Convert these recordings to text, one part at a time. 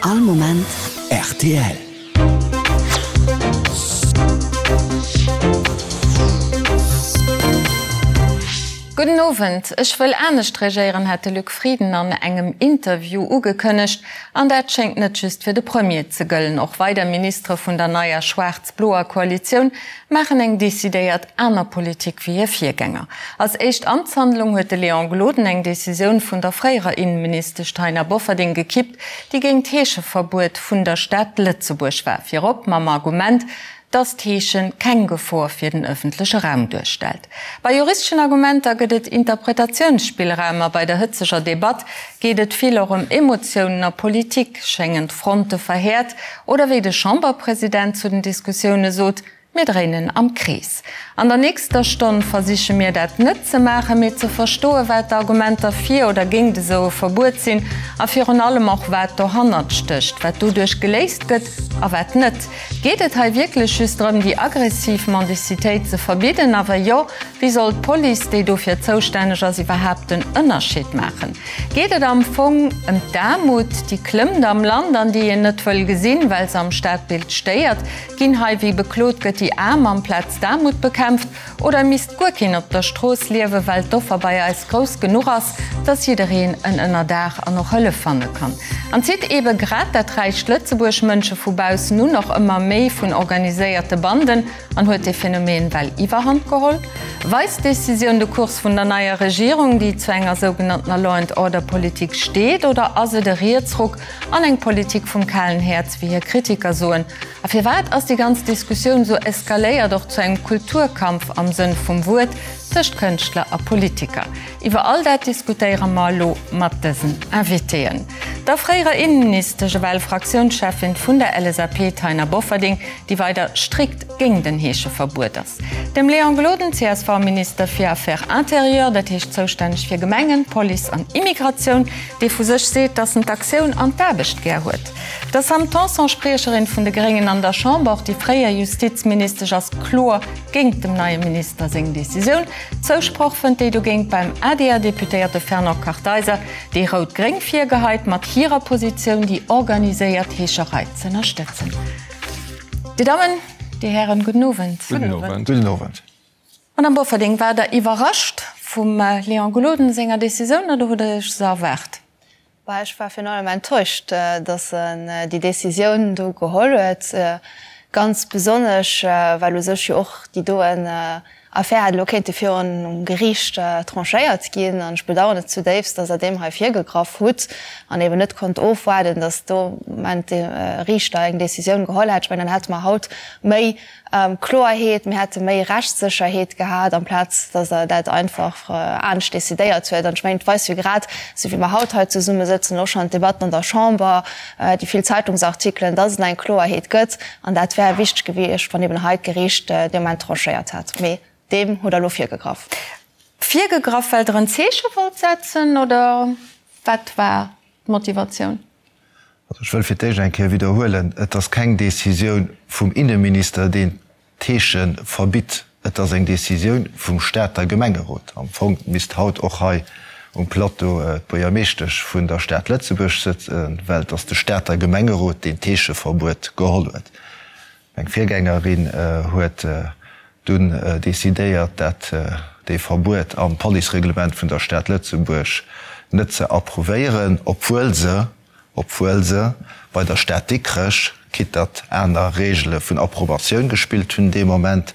All Moment rtl. Gudden Owend. Ech wëll anescht regéieren, hat de Luc Frieden an engem Interview ugekënnegt. An dat schéngt net just fir de Premier ze gëllen. Och weider Ministere vun der neier schwaarz-bloer Koalitioun maachen eng decidéiert aner Politik wéi hir Virgänger. Als éischt Amtshandlung huet de Léon Gloden eng Decisioun vun der fréierer Innenministesch Taina Bofferding gekippt, déi géint d'Heescheverbuet vun der Stad Lëtzebuerg war, virop mam Argument, dass d'Heesche keng Gefor fir den ëffentleche Raum duerstellt. Bei juristeschen Argumenter gëtt et Interpretatiounsspillraum a bei der hëtzeger Debatt geet et vill och ëm Emotiounen a Politik, schéngen d'Fronte verhäert oder wéi de Chamberpresident zu den Diskussioune sot, Mir dréinen am Krees. An der nächster Stonn versiche mir dat net ze maachen, mee ze verstoen, wat d'Argumenter fir oder géingt esou e Verbuet sinn a virun allem och wat dohannert stécht, wat doduerch geléist gëtt a wat net. Geet et hei wierklech just drëm, déi aggressiv Mendicitéit ze verbidden? A wa jo, wéi soll d'Police, déi dofir zoustänneg ass, iwwerhaapt den Ënnerscheed maachen? Geet et am Fong ëm d'Aarmut, déi klëmmt am Land an déi een net wëll gesinn, well se am Stadbild stéiert? Ginn hei, wéi beklot gëtt, déi Aarm amplaz d'Aarmut bekämpft? Oder misst guer keen op der Strooss liewen, well d'Offer bei eis grouss genuch ass, dass jiddereen en Ënnerdaach an och Hëllef fanne kann? An zitt eebe grad dat räicht Lëtzebuerg Mënsche vu baussen un, och ëmmer méi vun organiséierte Banden, an huet dee Phänomen well Iwwerhand geholl? Weist d'Decisioun de Kurs vun der neier Regierung, déi zu enger sougenanntener Law and Order Politik steet, oder ass et e Rietsruck an eng Politik vum kalen Häerz, wéi hir Kritiker soen? A firwat ass déi ganz Diskussioun esou eskaléiert, och zu engem Kulturkampf am Sënn vum Wuert tëscht Kënschtler a Politiker? Iwwer all dat diskutéiere mer elo mat dësen Invitéen, der fréierer Innenministesch, ewell Fraktiounscheffin vun der LSAP Taina Bofferding, déi weider strikt géing den Heescheverbuet ass, dem Léon Gloden, CSV-Minister fir Affaires intérieures, dat heescht zoustänneg fir Gemengen, Police an Immigratioun, dee vu sech seet, datt en d'Aktioun an d'Aarbecht gär huet. Der Sam Tanson, Spriecherin vun de Gréngen an der Chamber, och déi fréier Justizministesch ass kloer géingt dem neie Minister seng Decisioun. Zousproch fënnt déi dogéint beim ADR-Deputéierte Fernand Kartheiser, dee Rout-Gréng virgeheit, mat hirer Positioun déi organiséiert Heescherei z'ënnerstëtzen. Dir Dammen, Dir Hären, gudden Owend. Gudden Owend. Gudden Owend. Madame Bofferding, waart Der iwwerrascht vum Léon Gloden senger Decisioun oder hutt Der Iech se erwaart? Bah, ech war virun allem enttäuscht, datt en déi Décisioun do geholl huet, ganz besonnesch well u sech jo och déi doen Affär hätt elo kéinte virun Geriicht tranchéiert ginn. An ech bedauern et zudéifst, datt Der deem hei virgegraff hutt an eben net konnt ofwaarden, datt do Moment de Riichter eng Décisioun geholl hätt. Ech mengen, dann hätte mer haut méi Kloerheet, mir hätte méi Rechtssécherheet gehat, amplaz datt Der dat einfach anescht decidéiert huet. An ech mengen, et weist jo grad, esou wéi mer haut hei zesummesëtzen, och schonn d'Debatten an der Chamber, déi vill Zeitungsartikelen, datt et eng Kloerheet gëtt. An dat wär wichteg gewiescht, wann eben hei d'Geriicht dee Moment tranchéiert hätt. Mee deem hutt Der elo virgegraff. Virgegraff, well Der en Zeeche wollt setzen, oder wat war d'Motivatioun? Also ech wëll fir d'éischt eng Kéier widderhuelen, Et ass keng Décisioun vum Inneminister, deen d'Heesche verbitt. Et ass eng Décisioun vum Stater Gemengerot. Am Fong misst haut och hei um Plateau d'Buergermeeschtesch vun der Stad Lëtzebuerg sëtzen, well et ass de Stater Gemengerot, deen d'Heescheverbuet geholl huet. Meng Virgängerin huet dunn decidéiert, dat dee Verbuet am Policereglement vun der Stad Lëtzebuerg net ze approuvéieren, obwuel se, obwuel se bei der Stad Dikrech, quitte datt aner Regele vun Approbatioun gespillt hunn dee Moment,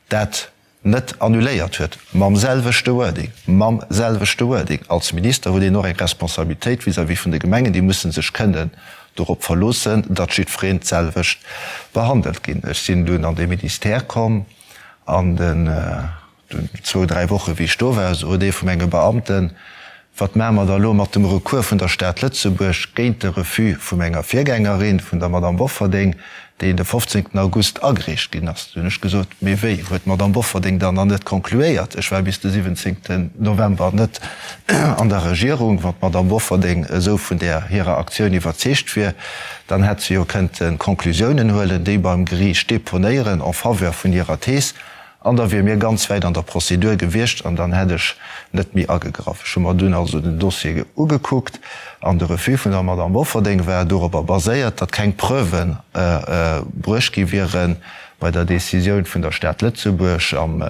dat net annuléiert huet, mam selwechte Wording, mam selwechte Wording. Als Minister huet een och eng Responsabilitéit vis-à-vis vun de Gemengen, déi musse sech kënnen dorop verloossen, datt jiddwereen d'selwecht behandelt ginn. Ech sinn dunn an dee Ministère komm an den zwou, dräi Woche wéi ech do war, sot ee vu menge Beamten, Wat maache mer da elo mat dem Recours vun der Stad Lëtzebuerg géint de Refus vu menger Virgängerin, vun der Madame Bofferding, deen de 15 August agereecht ginn ass? Du hunn ech gesot, Mee wéi, huet d'Madame Bofferding dann nach net concluéiert? Ech war bis de 17 November net an der Regierung. Wann d'Madame Bofferding esou vun där hirer Aktioun iwwerzeegt wier, dann hätt se jo kënnte Conclusiounen huelen, déi beim Geriicht deponéieren en faveur vun hirer Thees. An da wier mir ganz wäit an der Prozedur gewiescht an dann hätt ech net méi agegraff. Ech hu mer dunn also den Dossier ugekuckt an de Refus vun der Madame Bofferding war dorobber baséiert, datt keng Preuven bruecht gi wiere bei der Décisioun vun der Stad Lëtzebuerg, am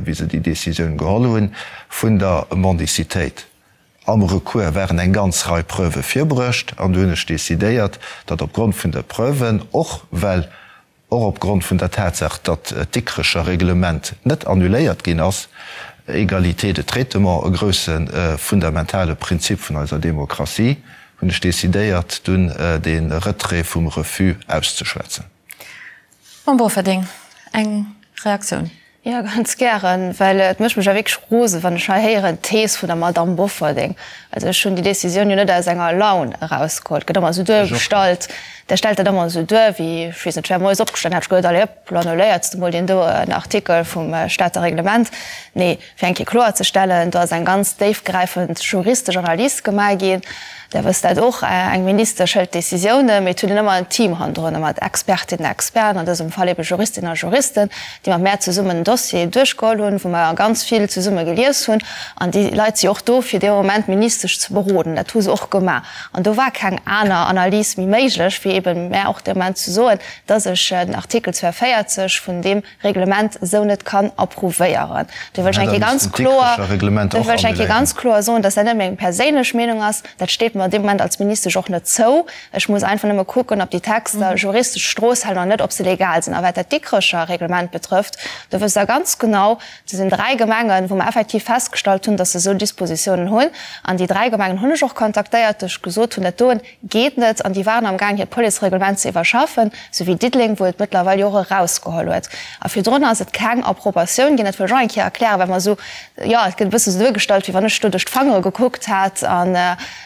wéi se déi Décisioun geholl hunn, vun der Mendicitéit. Am Recours waren eng ganz Rei Preuve virbruecht an du hunn ech decidéiert, datt opgrond vun de Preuven, och well och opgrond vun der Tatsaach, datt d'Dikrecher Reglement net annuléiert ginn ass, Égalité de traitement, e grousse fundamentale Prinzip vun eiser Demokratie, hunn ech decidéiert, dunn de Retrait vum Refus auszeschwätzen. Mme Bofferding, eng Reaktioun. Jo, ganz gären, well et mécht mech jo wierklech rosen, wann ech hei héieren, d'Thees vun der Madamm Bofferding. Also ech hunn déi Décisioun jo net aus enger Laun erausgeholl. Et gëtt ëmmer esou duergestallt, Der stellt dat ëmmer esou duer, wéi, ech weess net, ech wär moies opgestanen, hätt ech geduet, allez hop, lo annuléiert s de mol deen doen Artikel vum Stater Reglement. Nee, fir eng Kéier kloerzestellen, do ass eng ganz déifgräifend juristesch Analys gemaach ginn. Der wësst dat och, eng Ministesch hëlt Décisiounen, mee et huet een ëmmer en Team hannendrun, mat Expertinnen a Experten, an dësem Fall ebe Juristinnen a Juristen, déi mat mär zesummen den Dossier duerchgeholl hunn, wou mer ganz vill zesumme gelies hunn. An déi Leit si och do, fir dee Moment d'Ministesch ze beroden. Dat hu se och gemaach. An do war keng aner Analys méi méiglech, wéi ebe mär och dee Moment ze soen, dass ech den Artikel 42 vun deem Reglement esou net kann approuvéieren. Do wëll ech eng Kéier ganz kloer, do wëll ech eng Kéier ganz kloer soen, dass dat net meng perséinlech Meenung ass. Dat steet mer an deem Moment als Ministesch och net zou. Ech muss einfach nëmme kucken, ob déi Texter juristesch d'Strooss halen oder net, ob se legal sinn. A wat dat Dikrecher Reglement betrëfft, do wësst Der ganz genau, do sinn 3 Gemengen, wou mer effektiv festgestallt hunn, dass se esou Dispositiounen hunn. An déi 3 Gemengen hunn ech och kontaktéiert, déi ech gesot hunn, dat doen Geet net, an déi waren am gaang hiert Policereglement ze iwwerschaffen, sou wéi Diddeleng, wou et mëttlerweil jo och erausgeholl huet. A virdrun ass et keng Approbatioun ginn. Dat wëll ech och eng Kéier erklären, well mer esou, jo, et gëtt e bësse sou duergestallt, wéi wann ech do duerch d'Fangere gekuckt hätt an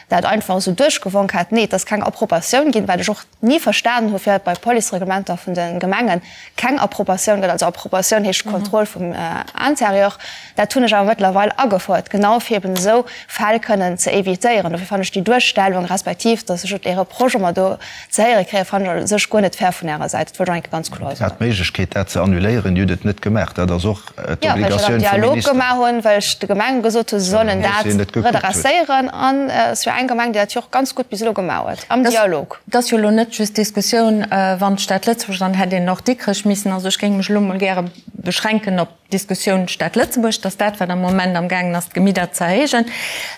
dat einfach esou duerchgewonk hätt. Nee, et ass keng Approbatioun ginn, wat ech och ni verstanen hu firwat bei Policereglementer vun de Gemengen keng Approbatioun gëtt. Also Approbatioun heescht Kontroll vum Intérieur. Dat hunn ech awer mëttlerweil agefouert, genau fir eben esou Fäll kënnen ze évitéieren. Dofir fannen ech déi Duerstellung, respektiv datt ech Är Reproche ëmmer do ze héiere kréien, fannen ech u sech guer net fair vun Ärer Säit. Dat wëllt ech och eng Kéier ganz kloer soen. Dir hat d'Méiglechkeet, dat ze annuléieren. Dir hutt et net gemaach. Dat ass och Jo, well ech dat am d'Obligatioun vum Dialog Minister. gemaach hunn, well ech de Gemenge gesot hunn, se sollen dat redresséieren. An et ass jo eng Gemeng, déi dat jo och ganz gutt bis elo gemaach huet, am Dialog. Et ass jo elo net just d'Diskussioun, wann d'Stad Lëtzebuerg, dann hätt een och Dikrech missen. Also ech géing mech elo mol gäre beschränken op D'Diskussioun Stad Lëtzebuerg, dat ass dat, wat am Moment am gaangen ass, d'Gemidder ze erhéijen.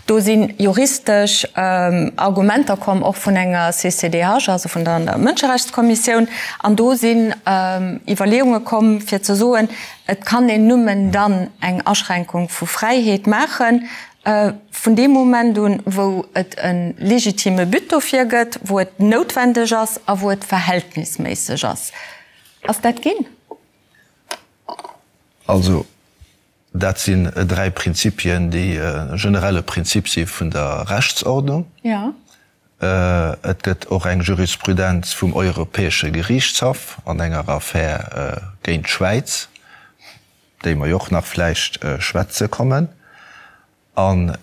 Do si juristesch Argumenter komm, och vun enger CCDH, also vun der Mënscherechtskommissioun. An do sinn Iwwerleeunge komm, fir ze soen, et kann een nëmmen dann eng Aschränkung vu Fräiheet maachen, vun deem Moment un, wou et e legitime But dofir gëtt, wou et noutwendeg ass a wou et verhältnisméisseg ass. Ass dat ginn? Also, dat sinn 3 Prinzipien, déi e generelle Prinzip si vun der Rechtsordnung. Et gëtt och eng Jurisprudenz vum Europäesche Geriichtshaff an enger Affär géint d'Schwäiz, déi mer jo och nach vläicht schwätze kommen. An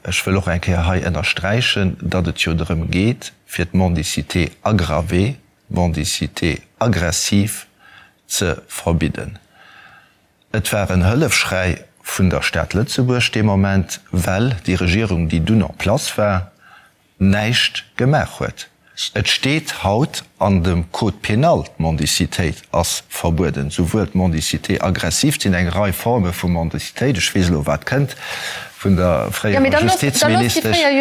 ech wëll och eng Kéier hei ënnersträichen, datt et jo drëm geet, fir d'Mendicité aggravée, d'Mendicité aggressive ze verbidden. Et war en Hëllefschräi vun der Stad Lëtzebuerg dee Moment, well déi Regierung, déi dunn en place war, näischt gemaach huet. Et steet haut an dem Code pénal, d'Mendicitéit ass verbueden, souwuel d'Mendicité aggressive, et sinn eng Rei Forme vu Mendicitéit, ech weess elo wat kënnt vun der fréierer Justizministesch, fréier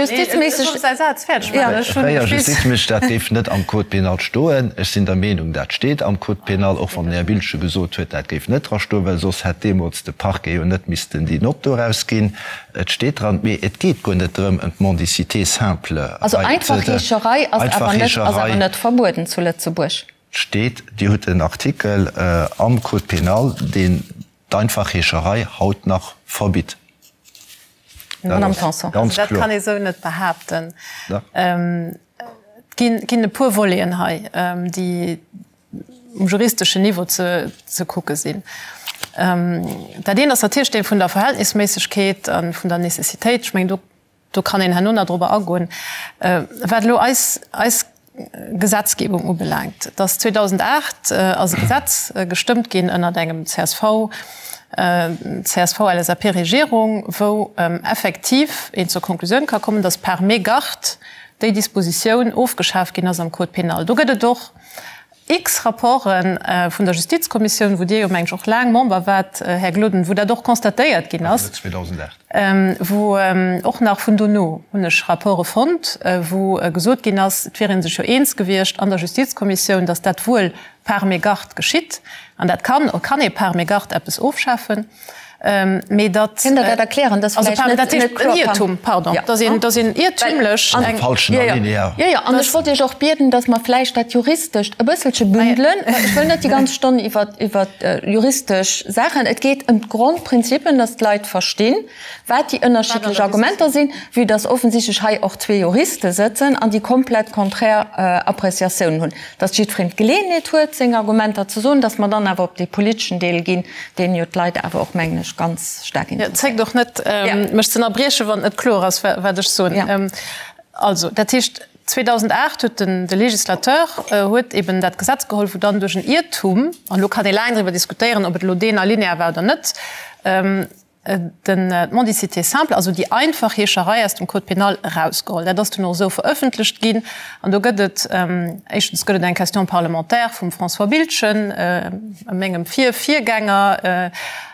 Justizministesch, dat géif net am Code pénal stoen. Ech sinn der Meenung, dat steet am Code pénal, och wann den Här Biltgen gesot huet, dat géif net dra stoen, well soss hätt deemools de Parquet jo net missten déi Nott do erausginn. Et steet dran, mee et geet guer net drëm ëm d'Mendicité simple. Also einfach Heescherei ass awer net, ass awer net verbueden zu Lëtzebuerg. Steet, Dir hutt en Artikel am Code pénal, deen d'einfach Heescherei haut nach verbitt. Madame Tanson. Ganz Dat kloer. kann ee sou net behaapten. Et ginn e puer Voleten hei, déi um juristeschen Niveau ze kucke sinn. Dat eent ass natierlech dee vun der Verhältnisméissegkeet a vun der Nécessitéit. Ech mengen, do, do kann een herno nach drobber agoen. Wat elo eis, eis. Gesetzgebung ubelaangt. Et ass 2008 ass e Gesetz gestëmmt ginn ënnert engem csv, CSV-LSAP-Regierung, wou effektiv een zur Konklusioun ka kommen, datt par mégarde déi Dispositioun ofgeschaf ginn ass am Code pénal. Do gëtt et och x Rapporte vun der Justizkommissioun, wou Dir jo, meng ech, och laang Member waart, Här Gloden, wou dat och constatéiert ginn ass. Wou och nach vun dono hunn ech Rapporte fonnt, wou gesot ginn ass, et wier ee sech jo eens gewiescht an der Justizkommissioun, datt dat wuel par mégarde geschitt, an dat kann, kann ee par mégarde eppes ofschafen, mee datt. Kënnt Der dat erklären? Dat ass vläicht net, net kloer. En Iertum, pardon, datt een, datt een iertümlech eng. Falschen Alinéa. Jo, jo, an ech wollt Iech och bieden, datt mer vläicht dat Juristescht e bësselche bündelen, well ech wëll net déi ganz Stonn iwwer, iwwer juristesch Saachen. Et geet ëm d'Grondprinzipien, datt d'Leit verstinn, wat déi ënnerschiddlech Argumenter sinn, vue datt offensichtlech hei och zwee Juriste sëtzen an déi komplett konträr Appreciatiounen hunn. Datt jiddwereen d'Geleeënheet huet, seng Argumenter ze soen, datt mer dann awer op dee politeschen Deel ginn, deen jo d'Leit awer och, mengen ech, ganz staark interesséiert. Zéckt och net, mech ze ënnerbriechen, wann et net kloer ass, wat ech soen. Also, dat heescht, 2008 huet den, de Législateur huet eben dat Gesetz geholl, wou dann duerch en Iertum, an elo kann ee laang driwwer diskutéieren, ob et elo deen Alinéa war oder net, den, d'Mendicité simple, also déi einfach Heescherei aus dem Code pénal erausgeholl. Dat ass dunn och esou verëffentlecht ginn. An do gëtt et, éischtens gëtt et eng Question parlementaire vum François Biltgen, mengem Vir-Virgänger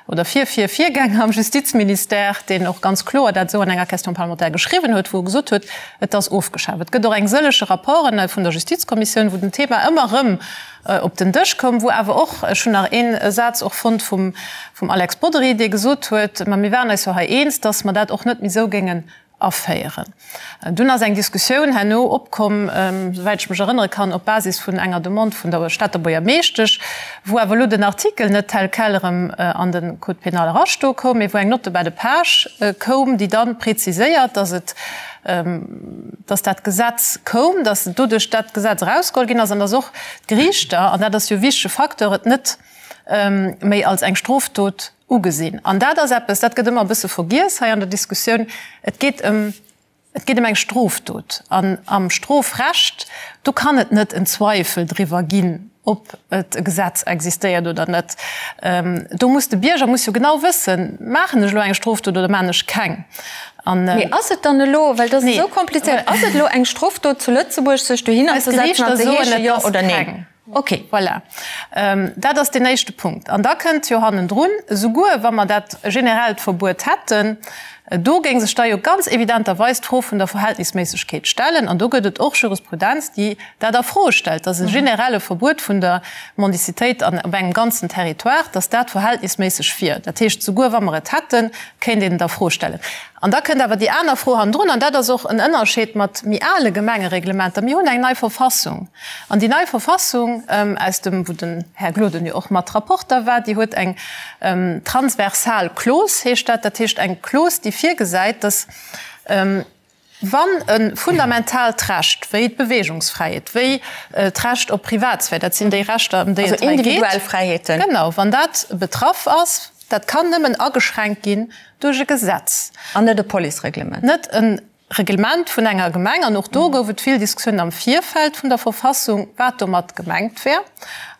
oder Vir-Vir-Virgänger am Justizministère, deen och ganz kloer dat esou an enger Question parlementaire geschriwwen huet, wou e gesot huet, et ass ofgeschaf. Et gëtt och eng sëllege Rapporten vun der Justizkommissioun, wou den Thema ëmmer erëm op den Dësch koum, wou awer och, ech hunn nach ee Saz och fonnt vum Alex Bodry, dee gesot huet, ma mir waren eis jo hei eens, datt mer dat och net méi esou géingen aféieren. Dunn ass eng Diskussioun herno opkomm, souwäit ech mech erënnere kann, op Basis vun enger Demande vun der Stater Buergermeeschtesch, wou awer elo den Artikel net tel quel erëm an de Code pénal erastoe koum, mee wou eng Note de bas de page koum, déi da preziséiert, datt et, dass dat Gesetz koum, dass doduerch dat Gesetz erausgeholl ginn ass an dass och d'Geriichter, an dat ass jo e wichtege Facteur, et net méi als eng Strofdot ugesinn. An dat ass eppes, dat gëtt ëmmer e bësse vergiess hei an der Diskussioun, Et geet ëm, et geet ëm eng Strofdot. An am Strofrecht, do kann et net en Zweifel driwwer ginn, ob et e Gesetz existéiert oder net. Do muss de Bierger muss jo genau wëssen, Maachen ech elo eng Strofdot oder maachen ech keng? An. Mee ass et dann elo, well dat ass esou komplizéiert, ass et elo eng Strofdot zu Lëtzebuerg, sech dohinner ze setzen an ze heeschen, jo oder neen? Ok. Voilà. Dat ass deen éischte Punkt. An da kënnt jo hannendrun, esouguer wa mer dat generellt Verbuet hätten, do géing sech da jo ganz evidenterweis d'Fro vun der Verhältnisméissegkeet stellen. An do gëtt et och Jurisprudenz, déi dat a Fro stellt, dass e generelle Verbuet vun der Mendicitéit an op engem ganzen Territoire, dass dat verhältnisméisseg wier. Dat heescht, souguer wa mer et hätten, kéint een et a Fro stellen. An da kënnt awer déi aner Fro hannendrun, an dat ass och en Ënnerscheed mat méi ale Gemengereglementer, Mir hunn eng nei Verfassung. An déi nei Verfassung, aus dem, wou den Här Gloden jo och mat Rapporter war, déi huet eng transversal Clause, heescht dat, dat heescht eng Clause, déi virgesäit, dass, Wann e fundamentaalt Recht wéi d'Beweegungsfräiheet, wéi d'Recht op Privatsphär, dat sinn déi Rechter, ëm déi et hei geet, genau, wann dat betraff ass, dat kann nëmmen ageschränkt ginn duerch e Gesetz. An net e Policereglement. Net e Reglement vun enger Gemeng. An och do gouf et vill Diskussiounen am Virfeld vun der Verfassung, wat domat gemengt wär.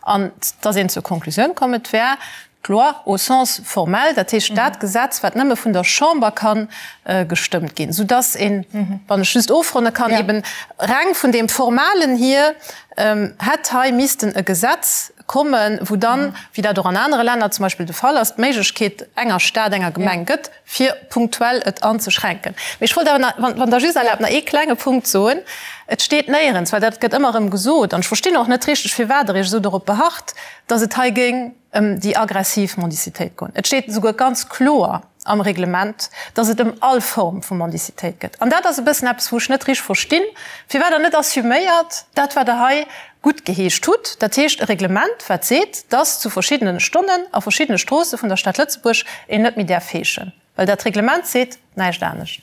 An et ass een zur Konklusioun komm, et wär D'Loi au sens formel, dat heescht dat Gesetz, wat nëmme vun der Chamber ka gestëmmt ginn, soudass een, wann ech just ofronne kann, eben reng vun deem Formalen hier hätt hei missten e Gesetz kommen, wou dann, wéi dat och an anere Länner zum Beispill de Fall ass, d'Méiglechkeet enger Stad, enger Gemeng gëtt, fir punktuell et anzeschränken. Mee ech wollt awer nach, wann Der just erlaabt, nach ee klenge Punkt soen. Et steet néierens, well dat gëtt ëmmer erëm gesot, an ech verstinn och net richteg, firwat Der Iech esou dorop beharrt, dass et hei géing ëm déi aggressiv Mendicitéit goen. Et steet esouguer ganz kloer am Reglement, dass et ëm all Form vu Mendicitéit gëtt. An dat ass e bëssen eppes, wou ech net richteg verstinn, firwat Der net assuméiert dat, wat Der hei guttgeheescht hutt, dat heescht e Reglement, wat seet, dass zu verschiddene Stonnen a verschiddene Stroosse vun der Stad Lëtzebuerg een net méi däerf heeschen, well dat Reglement seet näischt anescht.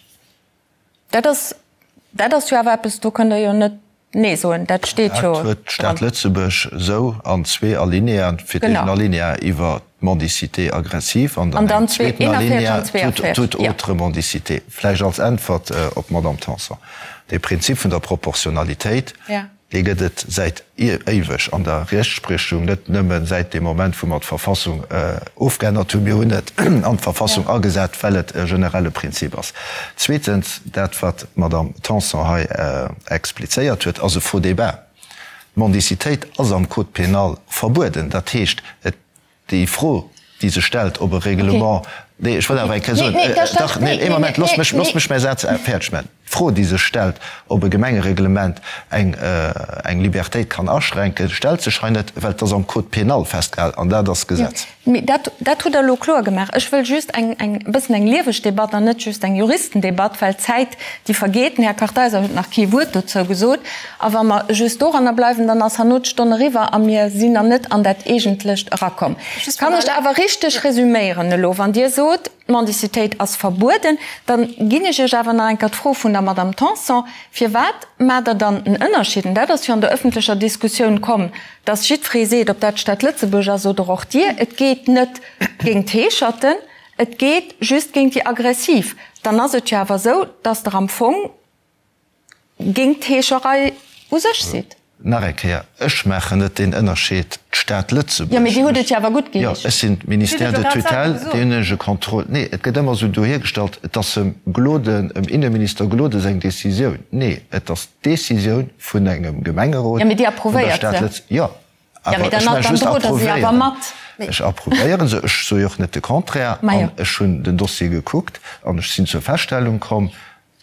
Dat ass, dat ass jo awer eppes, do kënnt Der jo net Nee soen, dat steet jo dran. Dat huet d'Stad Lëtzebuerg esou an zwee Alineaen, fir d'éischt en Alinea iwwer d'Mendicité aggressive an dann engem zweeten Alinea toute autre mendicité. Vläicht als Äntwert op d'Madame Tanson, De Prinzip vun der Proportionalitéit. Dee gëtt et säit éiweg an der Rechtspriechung, net nëmme säit deem Moment, wou mer d'Verfassung ofgeännert hunn. Mir hunn et an d'Verfassung agesat, well et e generelle Prinzip ass. Zweetens, dat, wat d'Madame Tanson hei explizéiert huet, ass e faux débat. D'Mendicitéit ass am Code pénal verbueden. Dat heescht, et Déi Fro, déi sech stellt, ob e Reglement, nee, ech wëll awer eng Kéier soen, dach, nee, ee Moment, loosst mech, loosst mech mäi Saz fäerdeg maachen. D'Fro, déi sech stellt, ob e Gemengereglement eng, eng Libertéit kann aschränken, stellt sech hei net, well et ass am Code pénal festgehalen an dat ass Gesetz. Mee dat, dat hutt Der elo kloer gemaach. Ech wëll just eng, eng e bëssen eng lieweg Debatt an net just eng Juristendebatt, well d'Zäit, déi vergeet. Den Här Kartheiser huet nach kee Wuert dozou gesot. A wa mer just doranner bleiwen, dann ass herno d'Stonn eriwwer a mir sinn nach net an dat Eegentlecht erakomm. Kann ech awer richteg resüméieren elo, wann Dir sot, d'Mendicitéit ass verbueden, dann ginn ech Iech awer nach eng Kéier d'Fro vun der Madame Tanson, Firwat maacht Der dann en Ënnerscheed, an dat ass jo an der öffentlecher Diskussioun komm, dass jiddweree seet, ob dat d'Stad Lëtzebuerg ass oder och Dir, et geet net géint d'Heescherten, et geet just géint déi Aggressiv. Dann ass et jo awer esou, dass Der am Fong, géint d'Heescherei u sech sidd. Nach eng Kéier, ech maachen net deen Ënnerscheed, d'Stad Lëtzebuerg. Jo, mee Dir hutt et jo awer gutt Jo, geheescht. ech sinn Ministère de tutelle, deen hunn ech e Contrôle. Nee, et gëtt ëmmer esou dohiergestallt, et ass em Gloden, em Inneminister Gloden seng Décisioun. Nee, et ass d'Décisioun vun engem Gemengerot Jo, mee Dir vun der approuvéiert Stad se. Lëtzebuerg. Jo, Jo, awer mee ech dann, maache dann just drot Der se awer approuvéieren. mat. Ech approuvéiere se, ech soe jo och net de Contraire. Ma jo. An ech hunn den Dossier gekuckt an ech sinn zur Feststellung komm,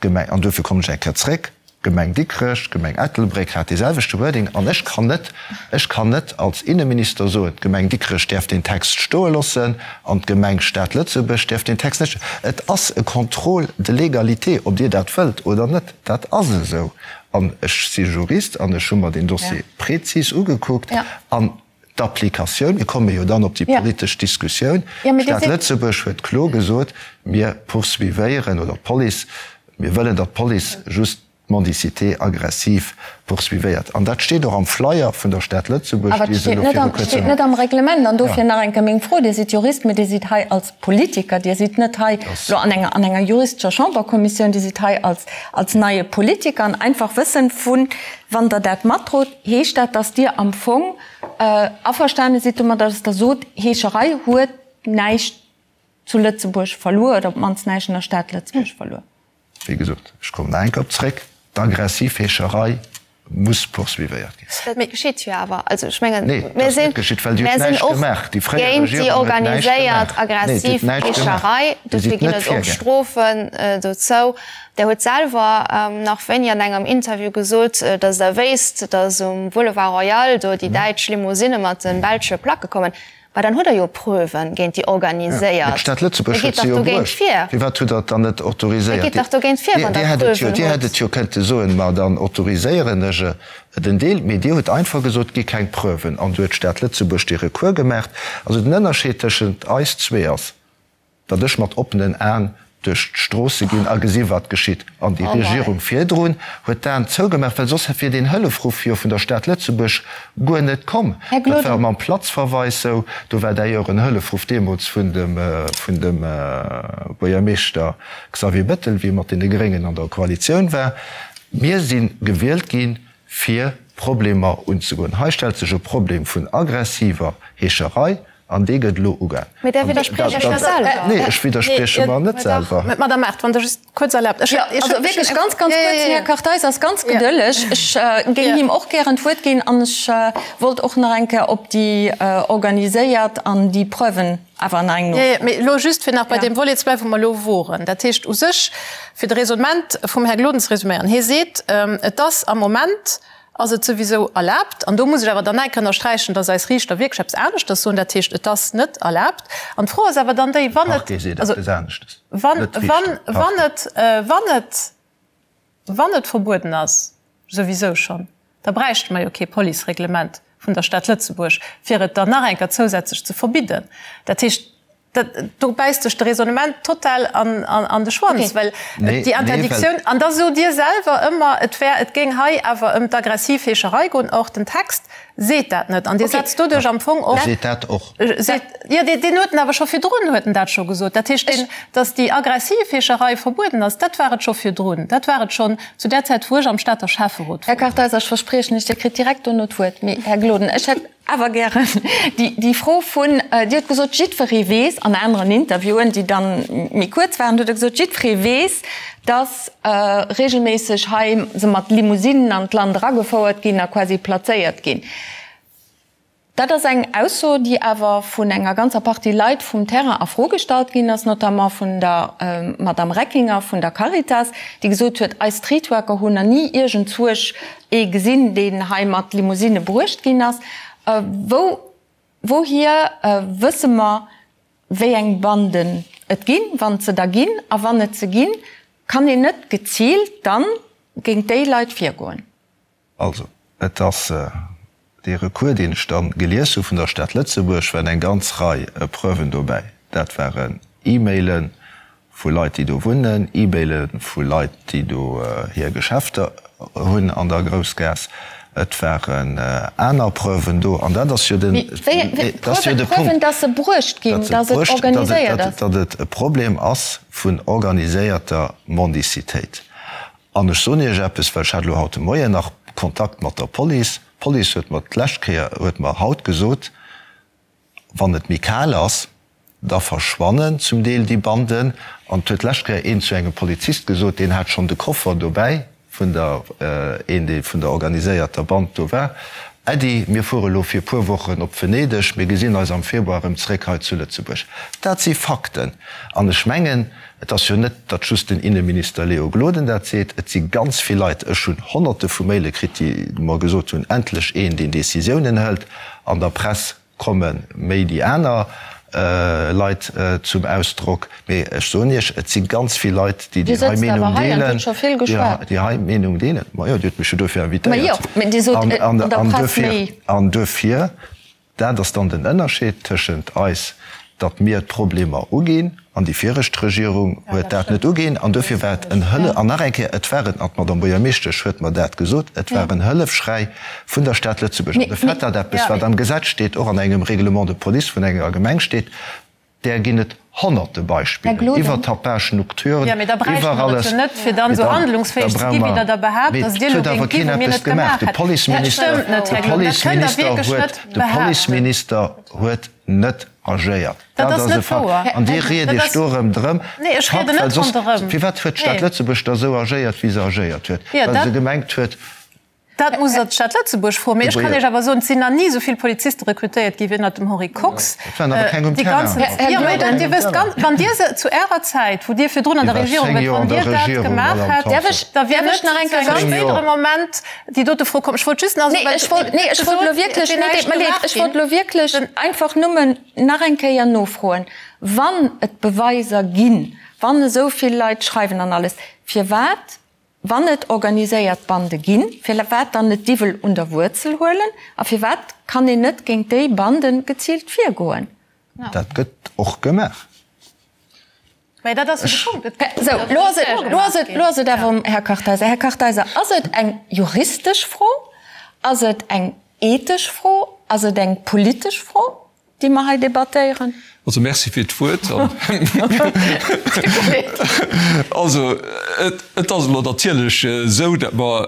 D'Gemeng, an duerfir kommen ech eng Kéier zréck, d'Gemeng Dikrech, d'Gemeng Ettelbréck hat dee selwechte Wording. An ech kann net, ech kann net als Inneminister soen, d'Gemeng Dikrech däerf deen Text stoe loossen an d'Gemeng Stad Lëtzebuerg däerf deen Text net. Et ass e Contrôle de légalité, ob Dir dat wëllt oder net, dat ass esou. An ech si Jurist an ech hu mer deen Dossier prezis ugekuckt an D'Applikatioun, mir komme jo dann op déi politesch Diskussioun, d'Stad Lëtzebuerg huet kloer gesot, mir poursuivéieren, oder d'Police, mir wëllen, datt d'Police just d'Mendicité aggressive poursuivéiert. An dat steet och am Flyer vun der Stad Lëtzebuerg, Awer et dee se steet elo net viru am, kuerzem. steet net am Reglement. An dofir nach eng Kéier meng Fro, Dir sidd Jurist, mee Dir sidd hei als Politiker, Dir sidd net hei elo an enger, an enger juristescher Chamberkommissioun, Dir sidd hei als, als neie Politiker. An einfach wëssen, vu wann Der dat matdrot, Heescht dat, dass Dir am Fong averstane sidd domadder, dass Der sot, Heescherei huet näischt zu Lëtzebuerg verluer oder op d'mannst näischt an der Stad Lëtzebuerg verluer? Wéi gesot, ech kommen nach eng Kéier op zréck, D'aggressiv Heescherei muss poursuivéiert ginn. Dat geschitt jo awer. Also ech mengen, Nee, dat mir ass sinn, net geschitt, well Dir hutt mir sinn näischt och gemaach. Déi fréier géint déi Regierung huet näischt organiséiert gemaach. Nee, Dir aggressiv hutt näischt gemaach. Heescherei. Dir Dofir sidd ginn net et och virgaangen. Strofen dozou. Der hutt selwer nach wéini an engem Interview gesot, datt Der wéisst, datt um Boulevard Royal do déi däitsch Limousinne mat de belsche Placke kommen. Mä dann hutt Der jo Preuven géint déi Mä organiséiert. d'Stad Lëtzebuerg Da huet gitt se dach jo dogéint bruecht. vir. Firwat hutt Der et dann net Da autoriséiert? gitt dach dogéint vir, wann Dir Der hätt et jo, Preuven Dir hätt hutt. et jo kënnte soen, ma dann autoriséieren ech et en Deel. Mee Dir hutt einfach gesot, et gi keng Preuven. An du huet d'Stad Lëtzebuerg dee Recours gemaacht. Also den Ënnerscheed tëschent eis zwee ass, datt ech mat oppenen Aen duerch d'Stroosse ginn a gesi wat geschitt. An déi Regierung virdrun huet d'Aen zougemaach, well soss wier deen Hëllefruff jo vun der Stad Lëtzebuerg guer net komm. Dat war mam Platzverweis sou. Do war d'ailleurs en Hëllefruff deemools vun dem vun dem Buergermeeschter Xavier Bettel, wéi e mat deene Gréngen an der Koalitioun war. Mir si gewielt ginn, fir Problemer unzegoen. Hei stellt sech e Problem vun aggressiver Heescherei An dee gëtt elo ugaang. Mee där widderspriecht Iech jo selwer. Nee, ech widdersprieche mer net selwer. Mä Madame Mart, wann Der just kuerz erlaabt. Ech, also wierklech ganz, ganz kuerz, den Här Kartheiser ass ganz gedëlleg. Ech géing him och gären d'Wuert ginn an ech wollt och nach eng Kéier op déi organiséiert an déi Preuven awer nach eng nofroen. Jo, jo, mee elo just, fir nach bei deem Volet ze bleiwen, wou mer elo woren. Dat heescht u sech, fir de Raisonnement vum Här Gloden ze resuméieren, Hie seet, et ass am Moment, ass et souwisou erlaabt, an do muss ech awer dann enk ënnersträichen, dass eis Riichter wierklech eppes aneschters soen, dat heescht, et ass net erlaabt. An d'Fro ass awer dann déi, wann et, also wann, wann, wann et, wann et, wann et verbueden ass, souwisou schonn, da bräichte mer jo kee Policereglement vun der Stad Lëtzebuerg, fir et dann nach eng Kéier zousätzlech ze verbidden. Dat heescht. Dat, do bäisst sech de Raisonnement total an, an, an de Schwanz, well déi Interdictioun, an da sot Dir selwer ëmmer, et wär, et géing hei awer ëm d'aggressiv Heescherei goen. Or, den Text seet dat net an Dir setzt doduerch am Fong och. Seet dat och. Seet, jo, deen, deen huet en awer scho virdrun huet en dat scho gesot. Dat heescht, deen, datt déi aggressiv Heescherei verbueden ass, dat war et scho virdrun. Dat war et schonn zu där Zäit, wou ech am Stater Schäfferot Här Kartheiser, ech verspriechen lech, Dir kritt direkt dono d'Wuert. Mee, Här Gloden, ech hätt awer gären déi Fro vun, Dir hutt gesot, jiddweree weess, an aneren Interviewen, déi dann méi kuerz waren, hutt Der gesot, jiddweree weess, datt regelméisseg hei se mat Limousinnen an d'Land eragefouert ginn a quasi plazéiert ginn. Dat ass eng Ausso, déi awer vun enger ganzer Partie Leit vum Terrain a Fro gestallt ginn ass, notamment vun der Madame Reckinger vun der Caritas, déi gesot huet, Eis Streetworker hunn nach ni iergendzuech ee gesinn, deen hei mat Limousinne bruecht ginn ass. Wou, wouhier wësse mer, wéi eng Banden et ginn, wann et se da ginn? A wann et se ginn, kann een net geziilt dann géint déi Leit virgoen? Also, et ass dee Recours, deen ech da gelies hu vun der Stad Lëtzebuerg, waren eng ganz Rei Preuven dobäi. Dat waren E-Maile vu Leit, déi do wunnen, E-Maile vu Leit, déi do hir Geschäfter hunn an der Groussgaass. Et waren aner Preuven do. An dat ass jo den, dat ass jo de Punkt. Preuven, datt se bruecht ginn, datt et organiséiert ass. Datt et e Problem ass vun organiséierter Mendicitéit. An ech soen Iech eppes, well ech hat elo haut de Moien nach Kontakt mat der Police. D'Police huet mer d'lescht Kéier, huet mer haut gesot, wann et méi kal ass, da verschwannen zum Deel déi Banden. An et huet d'lescht Kéier een zu engem Polizist gesot, deen hat schonn de Koffer dobäi vun der, een dee vun der organiséierter Band do war, Äddi, mir fuere lo fir e puer Wochen op Venedeg, mir gesinn eis am Februar erëm zréck hei zu Lëtzebuerg. Dat si Fakten. An ech mengen, Et ass jo net, datt just den Inneminister Léo Gloden dat seet, et si ganz vill Leit, ech hunn Honnerte vu Maile kritt, déi mer gesot hunn, endlech een, deen Decisiounen hëlt. An der Press komme méi déi aner Leit zum Ausdrock. Mee ech soen Iech, et si ganz vill Leit, déi déi hei Meenung deelen, déi hei Meenung deelen. Majo, Dir hutt mech jo dofir invitéiert. An duerfir. Dat ass dann den Ënnerscheed tëschent eis, datt mir d'Problemer uginn, an déi viregt Regierung huet dat net uginn. An duerfir war et en Hëlle, an nach eng Kéier, et war en, an d'Madame Buergermeeschtesch huet mer dat gesot, et war en Hëllefschräi vun der Stad Lëtzebuerg. An de Fait, datt eppes, wat am Gesetz steet, och an engem Règlement de police vun enger Gemeng steet, Där ginn et honnerte Beispiller, iwwer Tapage nocturne, Jo, mee da bräichte iwwer mer et alles. jo net, fir dann esou handlungsfäeg ze gi wéi Der da behaapt, Mee datt et Dir elo huet awer géingt gi keen wou mir eppes net gemaach. gemaach De hätten. Dat Policeminister, stëmmt net, de Här Gloden, dat kënnt Der Policeminister wierklech huet, net de behaapten. Policeminister huet net agéiert. Dat Dat ass ass e net Fakt. wouer. An Dir riet Dat Iech ass, do erëm drëm. nee, ech Fakt, rieden well net soss, ronderëm. firwat huet d'Stad Nee. Lëtzebuerg da esou agéiert, wéi se agéiert huet? Jo, Well dat. se gemengt huet, Dat muss Der d'Stad Lëtzebuerg froen. Mee ech kann Iech awer soen, et sinn nach ni esou vill Poliziste rekrutéiert gi wéi ënnert dem Henri Kox. Et waren awer keng um Déi Terrain. ganzen, jo, mee dat, Dir wësst ganz, wann Dir se zu Ärer Zäit, wou Dir virdrun an der Regierung waart, wann Dir dat gemaach hätt, da wier net zu engem spéidere Moment déi dote Fro komm. Ech wollt just nach soen, Nee, ech wollt, nee, ech wollt elo wierklech, nee, deet mer leed, ech wollt elo wierklech einfach nëmmen nach eng Kéier nofroen, Wann et Beweiser ginn, wann esou vill Leit schreiwen an alles, firwat Wann et organiséiert Bande ginn, firwat dann net d'Iwwel un der Wuerzel huelen? A firwat kann een net géint déi Bande geziilt virgoen? Dat gëtt och gemaach. Mä dat ass jo de Punkt, et gëtt Sou, lo ass et, lo ass et, lo ass et awer um Här Kartheiser. Här Kartheiser, ass et eng juristesch Fro? Ass et eng ethesch Fro? Ass et eng politesch Fro? Déi mer hei debattéieren. Also Merci fir d'Wuert. Also et ass elo natierlech esou, datt mer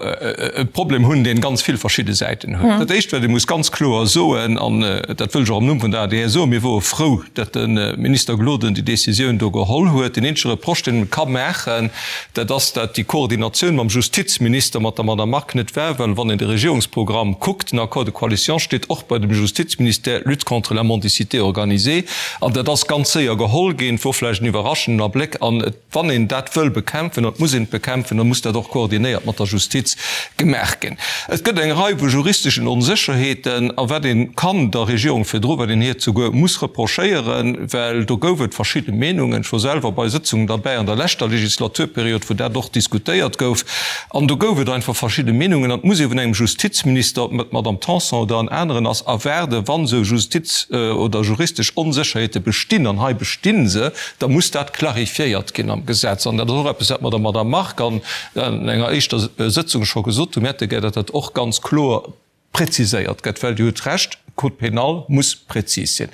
e Problem hunn, dee ganz vill verschidde Säiten huet. Dat Éischt, wat ee muss ganz kloer soen, an dat wëll ech och am Numm vun der adr soen, Mir wore frou, datt de Minister Gloden déi Décisioun do geholl huet. Deen eenzege Reproche, deen ee ka maachen, dat ass, datt déi Koordinatioun mam Justizminister, mat der Madame Margue net war, well wann een de Regierungsprogramm kuckt, den Accord de coalition steet och bei dem Justizministère Lutte contre la mendicité organisée, an dat ass ganz séier geholl ginn, et wor vläicht en iwwerraschenden Abléck, an et, wann een dat wëll bekämpfen, an et muss een et bekämpfen, da muss dat och koordinéiert mat der Justiz gemaach ginn. Et gëtt eng Rei vu juristeschen Onsécherheeten, a wat ee kann der Regierung virdru, wat een hir souguer muss reprochéieren, well do gouf et verschidde Meenungen, ech wor selwer bei Sëtzungen derbäi an der leschter Legislaturperiod, wou dat och diskutéiert gouf, an do gouf et einfach verschidde Meenungen, an et muss ee vun engem Justizminister, ob et d'Madame Tanson oder en aneren ass, erwaarden, wann esou Justiz oder juristesch Onsécherheete. Onkloerheete bestinn, an hei besti se, da muss dat clarifiéiert ginn am Gesetz. An dat ass och eppes, wat mer der Madame Margue an enger éischter Sëtzung scho gesot hunn. Mir hätte gär, datt dat och ganz kloer preziséiert gëtt, well Dir hutt Recht, Code pénal muss prezis sinn.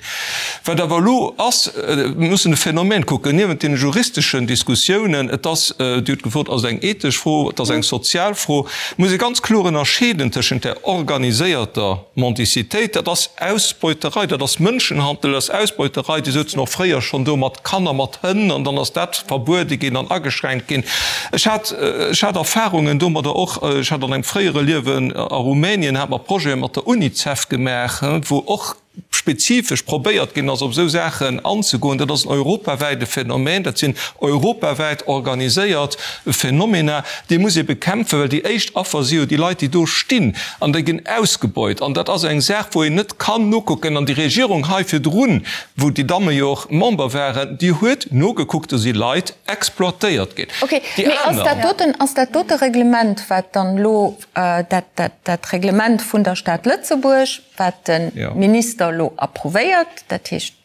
Wat awer elo ass, mir mussen de Phänomen kucken, niewent deene juristeschen Diskussiounen, et ass, Dir hutt gefrot, ass et eng ethesch Fro, et ass eng sozial Fro, muss ee ganz kloer ënnerscheeden tëschent där organiséierter Mendicitéit, dat ass Ausbeuterei, dat ass Mënschenhandel, dat ass Ausbeuterei, déi souzen och fréier schonn do mat Kanner, mat Hënn, an dann ass dat verbuede ginn an ageschränkt ginn. Ech hat, ech hat Erfahrungen domadder och, ech hat an engem fréiere Liewen a Rumänien, hat mer Projete mat der Unicef gemaach, wou och spezifesch probéiert ginn ass, op esou Saachen anzegoen. Dat ass en europawäite Phänomen, dat sinn europawäit organiséiert Phenomena, déi muss ee bekämpfen, well déi éischt Affer si jo déi Leit, déi do stinn an déi ginn ausgebeut. An dat ass eng Saach, wou een net kann nokucken. An déi Regierung hei virdrun, wou déi Damme jo och Member waren, déi huet nogekuckt, do si Leit exploitéiert ginn. Ok, mee ass dat doten, ass dat dote Reglement, wat dann elo, dat, dat, dat Reglement vun der Stad Lëtzebuerg, wat de Minister elo approuvéiert, dat heescht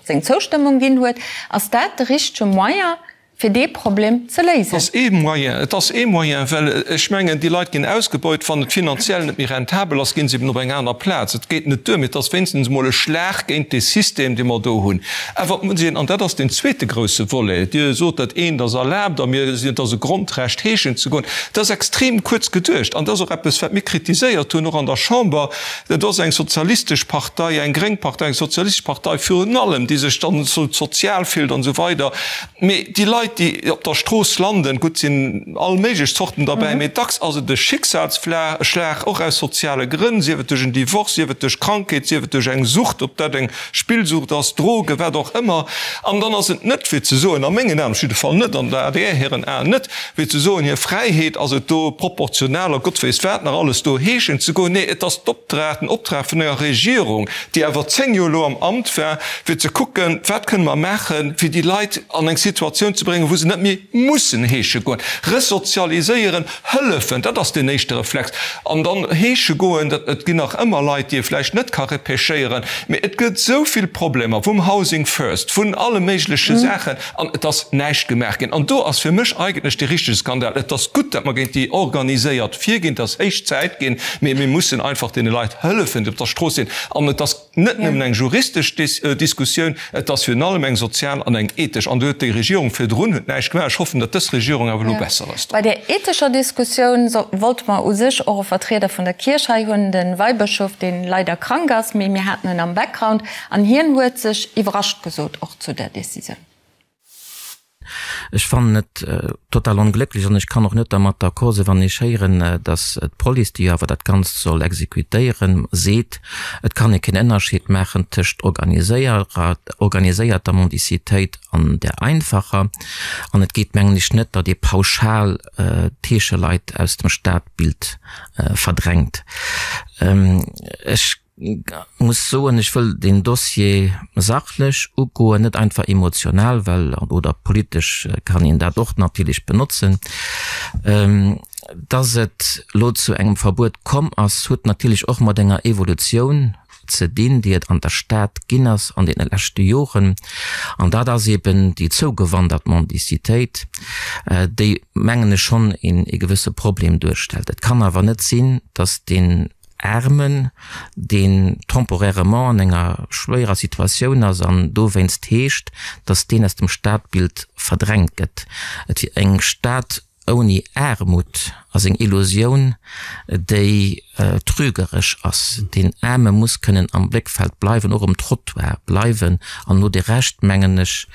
seng Zoustëmmung ginn huet, ass dat de richtege Moyen, fir dee Problem ze léisen? Et ass ee Moyen, et ass ee Moyen, well ech mengen, déi Leit ginn ausgebeut. Wann et finanziell net méi rentabel ass, ginn se eben op eng aner Plaz. Et geet net duer, mee et ass wéinstens emol e Schlag géint dee System, dee mer do hunn. Awer et muss een, an dat ass deen zweete grousse Volet, Dir sot, dat eent ass erlaabt a mir sinn, et ass e Grondrecht, heeschen ze goen. Dat ass extrem kuerz geduecht an dat ass och eppes, wat mir kritiséiert hunn, och an der Chamber. Dat ass eng sozialistesch Partei, eng gréng Partei, eng sozialistesch Partei virun allem, déi sech dann esou sozial fillt an esou weider. Mee déi Leit, déi op der Strooss landen, gutt, sinn all méiglech Zorten derbäi, mee dacks ass et e Schicksalsschlag, och aus soziale Grënn, sief et duerch en Divorce, sief et duerch Krankheet, sief et duerch eng Sucht, ob dat eng Spillsucht ass, Drogen, wat och ëmmer. An dann ass et net fir ze soen, a mengen Aen op jidde Fall net, an der adr hiren Aen net, fir ze soen, hir Fräiheet ass et do proportional a Gott weess wat nach alles do heeschen ze goen. Nee, et ass d'Opdrag, den Optrag vun enger Regierung, déi awer 10 Joer elo am Amt war, fir ze kucken, wat kënne mer maachen, fir déi Leit an eng Situatioun ze bréngen, wou se net méi mussen heesche goen. Resozialiséieren, hëllefen, dat ass deen éischte Reflex. An dann heesche goen, dat, et ginn nach ëmmer Leit, déi ee vläicht net ka repêchéieren, mee et gëtt esou vill Problemer, vum Housing First, vun alle méigleche Saachen, an et ass näischt gemaach ginn. An do ass fir mech eigentlech dee richtege Skandal. Et ass gutt, datt mer géint déi organiséiert virginn, et ass héich Zäit ginn, mee mir mussen einfach deene Leit hëllefen, déi op der Strooss sinn. An et ass net nëmmen eng juristesch Diskussioun, et ass virun allem eng sozial an eng ethesch. An do huet déi Regierung virdrun huet näischt gemaach. Ech hoffen, datt dës Regierung awer elo besser ass do. Bei där ethescher Diskussioun wollte mer u sech och e Vertrieder vun der Kierch hei hunn, de Weibëschof, dee leider krank ass, mee mir haten en am Background an hien huet sech iwwerrascht gesot och zu där Decisioun. Ech fannen et total onglécklech an ech kann och net dermat d'accord sinn, wann ech héieren, datt d'Police, déi jo awer dat Ganzt soll exekutéieren, seet, et kann ee keen Ënnerscheed maachen tëscht organiséierter Mendicitéit an där einfacher. An et geet, mengen ech, net, datt ee pauschal d'Heescheleit aus dem Stadbild verdrängt. Ech muss soen, ech wëll deen Dossier sachlech ugoen, net einfach emotional, well, oder politesch kann een dat och natierlech benotzen. Dass et elo zu engem Verbuet komm ass, huet natierlech och mat enger Evolutioun ze dinn, déi et an der Stad ginn ass an deene leschte Joren. An dat ass eben déi zougewandert Mendicitéit, déi, mengen ech, schonn ee gewësse Problem duerstellt. Et kann awer net sinn, dass deen Aarmen, deen temporairement an enger schwéierer Situatioun ass an dowéinst heescht, datt deen aus dem Stadbild verdrängt gëtt. Et wier eng Stad ouni Aarmut ass eng Illusioun, déi trügeresch ass. Deen Aarme muss kënnen am Bléckfeld bleiwen, och um Trottoir bleiwen an no de Recht, mengen ech,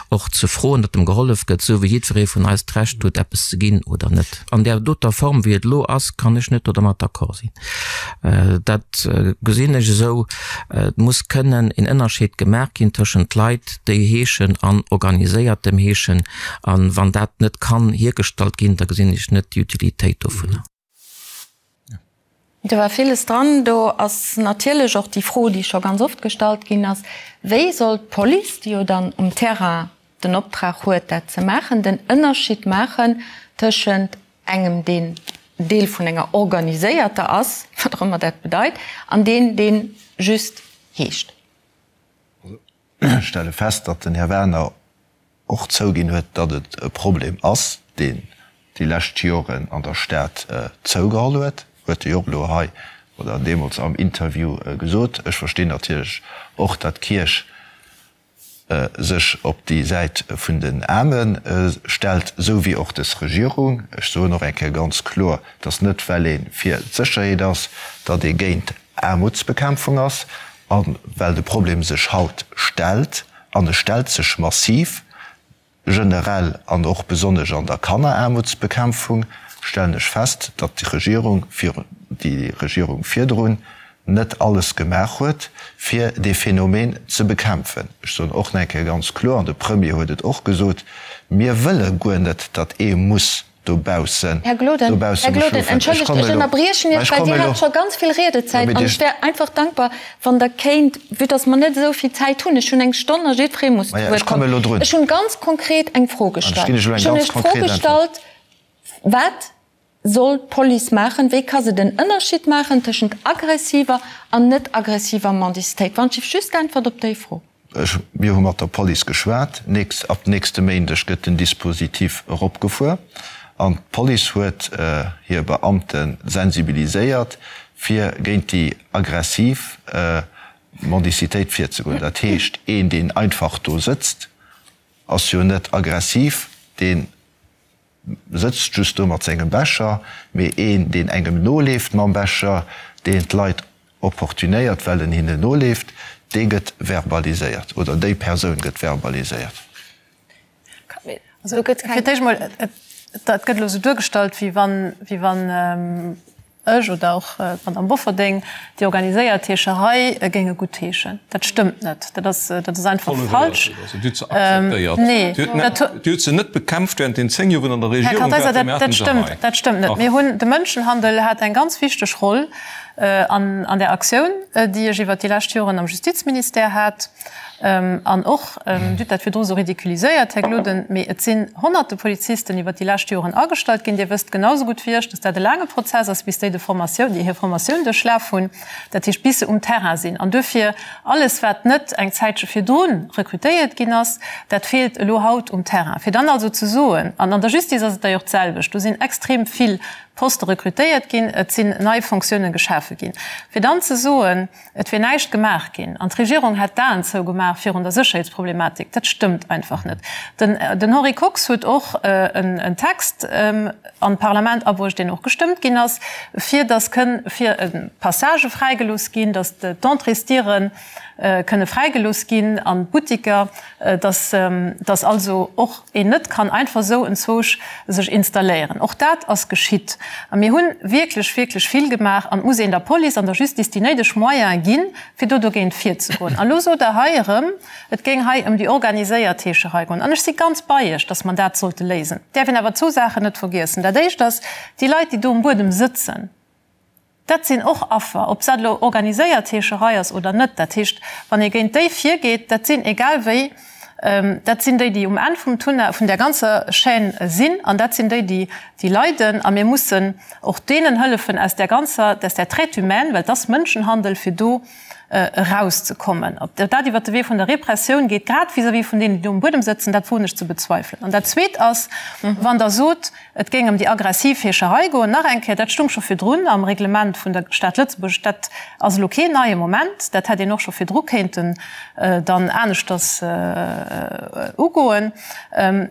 och ze froen, datt em gehollef gëtt, esou wéi jiddweree vun eis d'Recht huet, eppes ze ginn oder net. An där doter Form, wéi et elo ass, kann ech net dodermat d'accord sinn. Dat gesinn ech esou. Et muss kënnen een Ënnerscheed gemaach ginn tëschent Leit, déi heeschen an organiséiertem Heeschen. A wann dat net kann hiergestallt ginn, da gesinn ech net déi Utilitéit dovunner. Do war villes dran. Do ass natierlech och déi Fro, déi scho ganz oft gestallt ginn ass, Wéi soll d'Police, déi jo dann um Terrain den Optrag huet, dat ze maachen, den Ënnerscheed maachen tëschent engem, deen Deel vun enger organiséierter ass, wat och ëmmer dat bedeit, an deen, deen just heescht? Ech stelle fest, datt den Här Werner och zouginn huet, datt et e Problem ass, deen déi lescht Joren an der Stad zougeholl huet, huet e jo och elo hei oder deemools am Interview gesot. Ech verstinn natierlech och, datt d'Kierch sech op déi Säit vun den Aarme stellt, esou wéi och dës Regierung. Ech soen och eng Kéier ganz kloer, datt net well ee fir d'Sécherheet ass, datt ee géint Aarmutsbekämpfung ass. A well de Problem sech haut stellt, an e stellt sech massiv, generell an och besonnesch an der Kanneraarmutsbekämpfung, stellen ech fest, datt déi Regierung virun, déi Regierung virdrun net alles gemaach huet, fir dee Phänomen ze bekämpfen. Ech soen och nach eng Kéier ganz kloer, an de Premier huet et och gesot, Mir wëlle guer net, datt ee muss dobaussen, Här Gloden, dobausse Här muss Gloden, schlofen. Ech entschëllegt, kommen ech elo, ënnerbriechen mä Iech, ech well kommen Dir elo. hat scho ganz vill Jo, Riedezäit mee an Dir. ech wär einfach dankbar, wann Der kéint, vue dass mer net esou vill Zäit hunn, ech hunn eng Stonn a jiddweree muss zu Maja, Wuert ech komme kommen. elo drun. Ech hunn ganz konkret eng Fro An ech gestallt. ginn Iech elo eng Ech hunn ganz Iech d'Fro konkret Äntwert. gestallt, Wat soll d'Police maachen? Wéi ka se den Ënnerscheed maachen tëschent aggressiver an net aggressiver Mendicitéit? Wann ech just d'Äntwert op déi Fro. Ech, mir hu mat der Police geschwat. Nächst, ab nächste Méindeg gëtt den Dispositif eropgefuer an d'Police huet hir Beamte sensibiliséiert, fir géint déi aggressiv Mendicitéit virzegoen. Dat heescht, een, deen einfach do sëtzt, ass jo net aggressiv, deen sëtzt just do mat sengem Becher, mee een, deen engem noleeft mam Becher, deen d'Leit opportunéiert, well en hinnen noleeft, dee gëtt verbaliséiert oder déi Persoun gëtt verbaliséiert. Also fir d'éischt emol, dat gëtt elo esou duergestallt, wéi wann, wéi wann ech oder och d'Madame Bofferding déi organiséiert Heescherei géinge guttheeschen. Dat stëmmt net. Dat ass, dat ass einfach falsch. Dir hutt se akzeptéiert. Nee, dat hu. Dir hutt se net bekämpft während den 10 Joer, wou Der an der Här Regierung Kartheiser, waart. Mir dat, haten dat se stëmmt, hei. dat stëmmt net. Dach. Mir hunn, de Mënschenhandel hat eng ganz wichteg Roll an, an där Aktioun, déi ech iwwert déi lescht Joren am Justizministère hat. An och, Dir hutt dat virdru sou ridiculiséiert, Här Gloden, mee et sinn honnerte Polizisten iwwert déi lescht Joren agestallt ginn. Dir wësst genau sou gutt wéi ech, dass dat e laange Prozess ass, bis déi de Formatioun, déi hir Formatioun duerchlaf hunn, dat heescht bis se um Terrain sinn. An duerfir, alles wat net eng Zäitche virdru rekrutéiert ginn ass, dat feelt elo haut um Terrain. Fir dann also ze soen, an an der Justice ass et da jo och d'selwecht, do sinn extrem vill Poste rekrutéiert ginn, et sinn nei Fonctiounen geschafe ginn, fir dann ze soen, Et wier näischt gemaach ginn an d'Regierung hätt d'Aen zougemaach virun der Sécherheetsproblematik, dat stëmmt einfach net. Den Henri Kox huet och en Text an d'Parlament abruecht, deen och gestëmmt ginn ass, fir datt kënn fir Passagë fräigelooss ginn, datt d'Entréesdiere kënne fräigelooss ginn an d'Buttiker, datt datt also och een net kann einfach esou enzwousch sech installéieren. Och dat ass geschitt. A mir hu wierklech, wierklech vill gemaach. An et muss een der Police an der Justice déi néideg Moyene ginn, fir do dogéint virzegoen. An elo sot Der hei erëm, et géing hei ëm déi organiséiert Heescherei goen. An ech si ganz bei Iech, datt mer dat sollte léisen. Et däerf een awer zwou Saachen net vergiessen. Dat Éischt ass, déi Leit, déi do um Buedem sëtzen, Dat sinn och Affer, ob dat elo organiséiert Heescherei ass oder net. Dat heescht, wann ee géint déi virgeet, dat sinn egal wéi, dat sinn déi, déi um Enn vum Tunnel, vun där ganzer Chaîne sinn, an dat sinn déi, déi, déi leiden. A mir mussen och deenen hëllefen, aus där ganzer, aus där Traite humaine, well et ass Mënschenhandel, fir do erauszekommen. Ob dat iwwert de Wee vun der Repressioun geet, grad vis-à-vis vun deenen, déi do um Buedem sëtzen, dat woen ech ze bezweifelen. An dat Zweet ass, wann Der sot, et géing ëm déi aggressiv Heescherei goen, nach eng Kéier, dat stung scho virdrun am Reglement vun der Stad Lëtzebuerg, dat ass elo keen neie Moment, dat hätt een och scho virdru kéinten dann aneschters ugoen.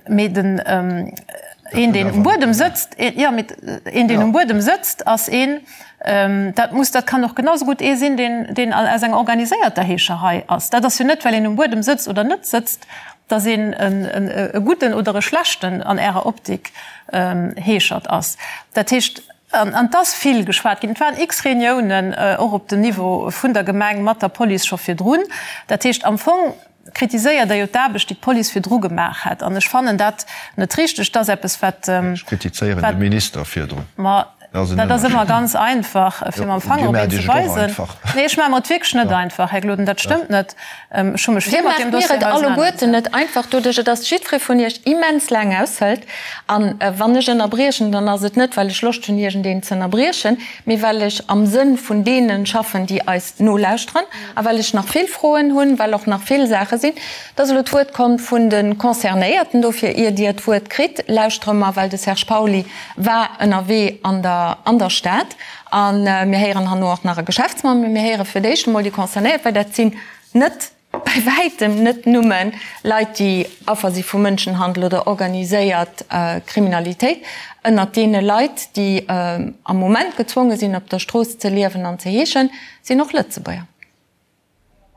Mee den, een, deen um Buedem sëtzt, jo, mee een, deen um Buedem sëtzt, ass een, Dat muss, dat kann och genau esou gutt ee sinn, deen, deen aus enger organiséierter Heescherei ass. Dat ass jo net, well een um Buedem sëtzt oder net sëtzt, datt een e gudden oder e schlechten, an Ärer Optik, Heeschert ass. Dat heescht, an et ass vill geschwat ginn, et waren x Reuniounen och op dem Niveau vun der Gemeng mat der Police scho virdrun. Dat heescht, am Fong kritiséiert Der jo d'Aarbecht, déi d'Police virdru gemaach hätt. An ech fannen dat net richteg. Dat ass eppes, wat. Ech kritizéieren de Minister virdrun. Ma. Dat ass ëmmer ganz einfach, fir mam Fanger op een ze weisen. Nee, ech maache mer et wierklech net einfach, Här Gloden, dat stëmmt net. Ech hu mech vill mat deem Dossier auseinannergesat. Dir maacht mir et alleguerten net einfach, doduerch, dass jiddweree vun Iech immens laang aushëlt. A wann ech ënnerbriechen, dann ass et net, well ech Loscht hunn, iergendeen ze ënnerbriechen, mee well ech am Sënn vun deene schaffen, déi eis nolauschteren, a well ech nach vill Froen hunn, well och nach vill Saache sinn. Et ass elo d'Wuert komm vun de Concernéierten. Dofir, ier Dir d'Wuert kritt, lauschtere mer, well de Serge Pauly war ënnerwee an der an der Stad a mir héieren herno och nach e Geschäftsmann, mee mir héiere fir d'éischt emol déi Concernéiert, well dat sinn net, bäi wäitem net numme Leit, déi Affer si vu Mënschenhandel oder organiséiert Kriminalitéit. Ënnert deene Leit, déi am Moment gezwonge sinn, op der Strooss ze liewen an ze heeschen, sinn och Lëtzebuerger.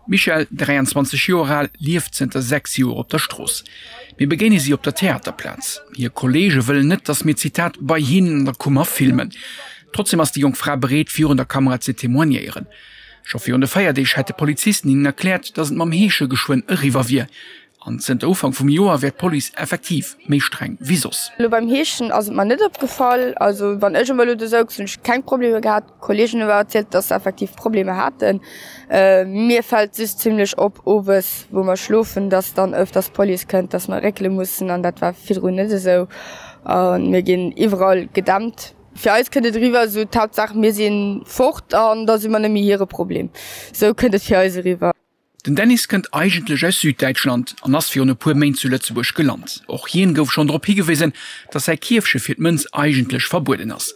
D'Michèle, 23 Joer al, lieft zënter 6 Joer op der Strooss. Mir begéine si op der Theaterplaz. Hir Kolleege wëllen net, datt mir, Zitat, bei hinnen an der Kummer filmen. Trotzdeem ass déi jonk Fra bereet, virun der Kamera ze témoignéieren. Scho virun de Feierdeeg hätte Polizisten hinnen erkläert, datt et mam Heesche geschwënn eriwwer wier. An zënter Ufank vum Joer wär d'Police effektiv méi streng wéi soss. Elo beim Heeschen ass et mer net opgefall. Also wann ech emol elo do souz, hunn ech keng Problemer gehat. Kolleegen hu awer erzielt, dass se effektiv Problemer haten. Mir fält just zimlech op owes, wou mer schlofen, dass dann ëfters d'Police kënnt, dass mer réckele mussen an dat war virdrun net esou. A mir ginn iwwerall gedämpt. Fir eis kënnt et eriwwer esou, d'Haaptsaach mir si fort an da si mer net méi hire Problem. Esou kënnt et fir eis eriwwer. Den Dennis kënnt eigentlech aus Süddäitschland an ass virun e puer Méint zu Lëtzebuerg gelant. Och hien gouf schonn drop higewisen, datt säi Kierfche fir d'Mënz eigentlech verbueden ass.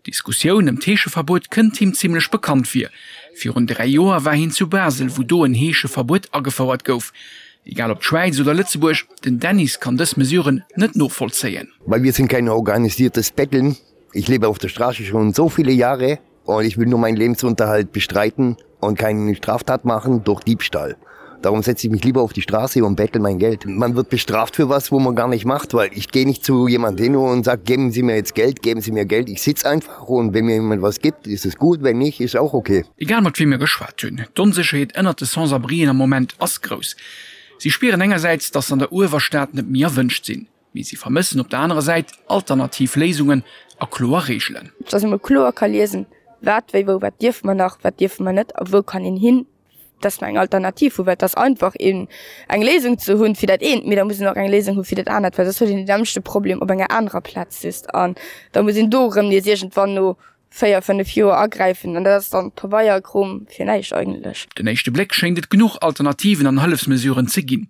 D'Diskussioun ëm d'Heescheverbuet kënnt him zimmlech bekannt vir. Virun 3 Joer war hien zu Basel, wou do en Heescheverbuet agefouert gouf. Egal ob d'Schwäiz oder Lëtzebuerg, den Dennis kann dës Mesuren net novollzéien. Weil wir sind kein organisiertes Betteln. Ich lebe auf der Straße schon so viele Jahre und ich will nur meinen Lebensunterhalt bestreiten und keine Straftat machen durch Diebstahl. Darum setze ich mich lieber auf die Straße und bettel mein Geld. Man wird bestraft für was, wo man gar nicht macht, weil ich gehe nicht zu jemand hin und sage, geben Sie mir jetzt Geld, geben Sie mir Geld. Ich sitze einfach und wenn mir jemand was gibt, ist es gut, wenn nicht, ist auch okay. Egal mat wiem mir geschwat hunn, d'Onsécherheet ënnert de Sans-abrien am Moment ass grouss. Si spieren engersäits, datt se an der Uewerstad net méi erwënscht sinn. Mee si vermëssen op der anerer Säit alternativ Léisungen a kloer Reegelen. Dass ee mol kloer ka liesen, wat, wéi, wou, wat dierfe mer nach, wat dierfe mer net a wou kann een hin, dass mer eng Alternativ hunn. Well et ass einfach een eng Léisung ze hunn fir dat eent, mee da muss een och eng Léisung hu fir dat anert, well soss huet een deen nämmlechte Problem op enger anerer Plaz just an da muss een do erëm nees iergendwann no 4, 5 Joer agräifen an dat ass dann Pabeierkrom fir näischt eigentlech. Op den éischte Bléck schéngt et genuch Alternativen an Hëllefsmesuren ze ginn.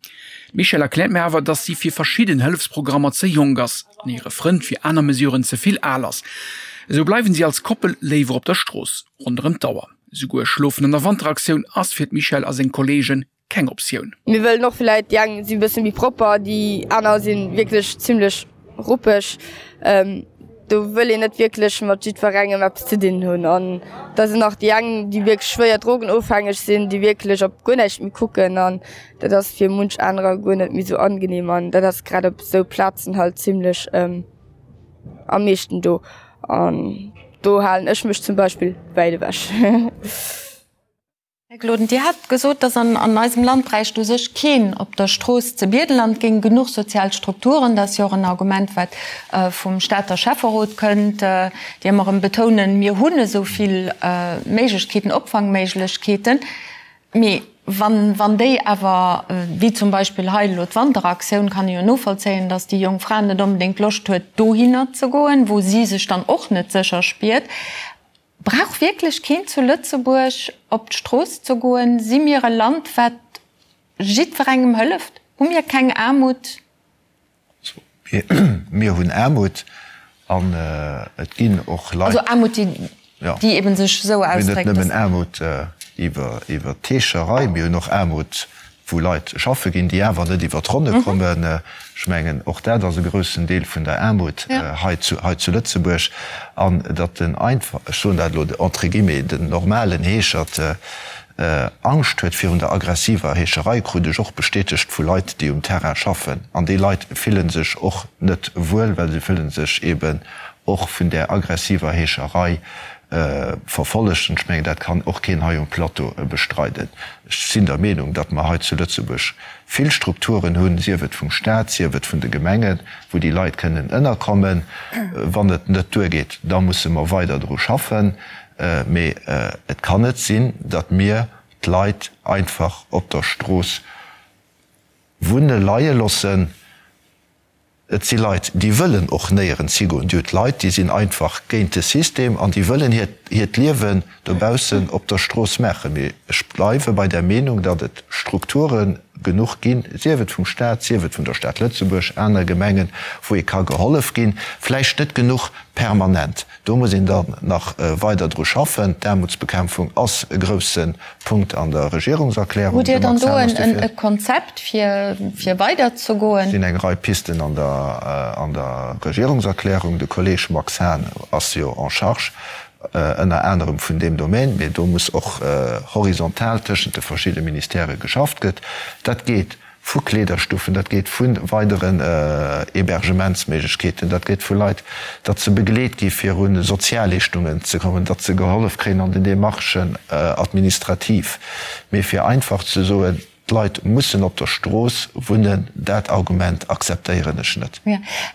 D'Michèle erkläert mir awer, dass si fir verschidden Hëllefsprogrammer ze jonk ass an hire Frënd fir aner Mesuren ze vill al ass. Esou bleiwen si als Koppel léiwer op der Strooss ronderëm d'Auer. Esouguer Schlofen an der Wanteraktioun ass fir d'Michèle a seng Kolleegen keng Optioun. Mir wëllen och vläit, déi eng si bësse méi propper, déi aner si wierklech zimlech ruppeg. Do wëll een net wierklech mat jiddwerengem eppes ze dinn hunn. An da sinn nach déi eng, déi wierklech schwéier drogenofhängeg sinn, déi wierklech op guer näischt méi kucken. An dat ass fir munch anerer guer net méi esou angenehm. An dat ass grad op esou Plazen halt zimlech am meeschten do. An do halen ech mech zum Beispill wäit ewech. Här Gloden, Dir hat gesot, dass an eisem Land bräicht u sech keen op der Strooss ze biedelen an et géing genuch sozial Strukturen. Dat ass jo och en Argument, wat vum Stater Schäfferot kënnt, déi ëmmer erëm betounen, mir hunn esou vill Méiglechkeeten, Opfangméiglechkeeten. Mee wann déi awer, wéi zum Beispill hei elo d'Wanteraktioun, kann ee jo novollzéien, dass déi jonk Fra net onbedéngt Loscht huet, dohinner ze goen, wou si sech dann och net sécher spiert. Brauch wierklech keen zu Lëtzebuerg op d'Strooss ze goen? Si mir e Land, wat jiddwerengem hëlleft? Hu mir keng Aarmut? Mir hunn Aarmut an et ginn och Leit. Also Aarmut, déi eben sech esou ausdréckt, dass. Mir hunn net nëmmen Aarmut iwwer d'Heescherei, mir hunn och Aarmut wou Leit schaffe ginn, déi awer net iwwer d'Ronne kommen. Ech mengen, och dat ass e groussen Deel vun der Aarmut hei zu Lëtzebuerg. An datt den einfach, ech soen dat elo entre guillemets, den normalen Heeschert Angscht huet virun der aggressiver Heescherei, krut ech och bestätegt vu Leit, déi um Terrain schaffen. An déi Leit fille sech och net wuel, well se fille sech eeben och vun där aggressiver Heescherei. Verfollegt. An ech mengen, dat kann och keen hei um Plateau bestreiden. Ech sinn der Meenung, datt mer hei zu Lëtzebuerg vill Strukturen hunn, sief et vum Stat, sief et vun de Gemengen, wou déi Leit kënnen ënnerkommen. Wann et net duergeet, da musse mer weider dru schaffen. Mee et kann net sinn, datt mir d'Leit einfach op der Strooss wunne leie loossen. Et si Leit, déi wëllen och néierens higoen. Dir hutt Leit, déi sinn einfach géint de System an déi wëllen hiert hiert Liewen dobaussen op der Strooss maachen. Mee ech bleiwe bei der Meenung, datt et Strukture genuch ginn, sief et vum Stat, sief et vun der Stad Lëtzebuerg, aner Gemengen, wou ee ka gehollef ginn. Vläicht net genuch permanent. Do muss een dann nach weider dru schaffen. D'Aarmutsbekämpfung ass e grousse Punkt an der Regierungserklärung. Hutt Dir dann do e Konzept, fir weiderzegoen? Et sinn eng Rei Pisten an der Regierungserklärung. De Kolleeg Max Hahn ass jo en charge ënner anerem vun deem Domaine. Mee do muss och horizontal tëschent de verschidde Ministèrë geschafft gëtt. Dat geet vu Kleederstuffen, dat geet vu weideren Hébergementsméiglechkeeten, dat geet vu Leit, datt se begleet gi fir u Sozialleeschtungen ze kommen, datt se gehollef kréien an den Démarchen administrativ. Mee fir einfach ze soen, d'Leit mussen op der Strooss wunnen, dat Argument akzeptéieren ech net.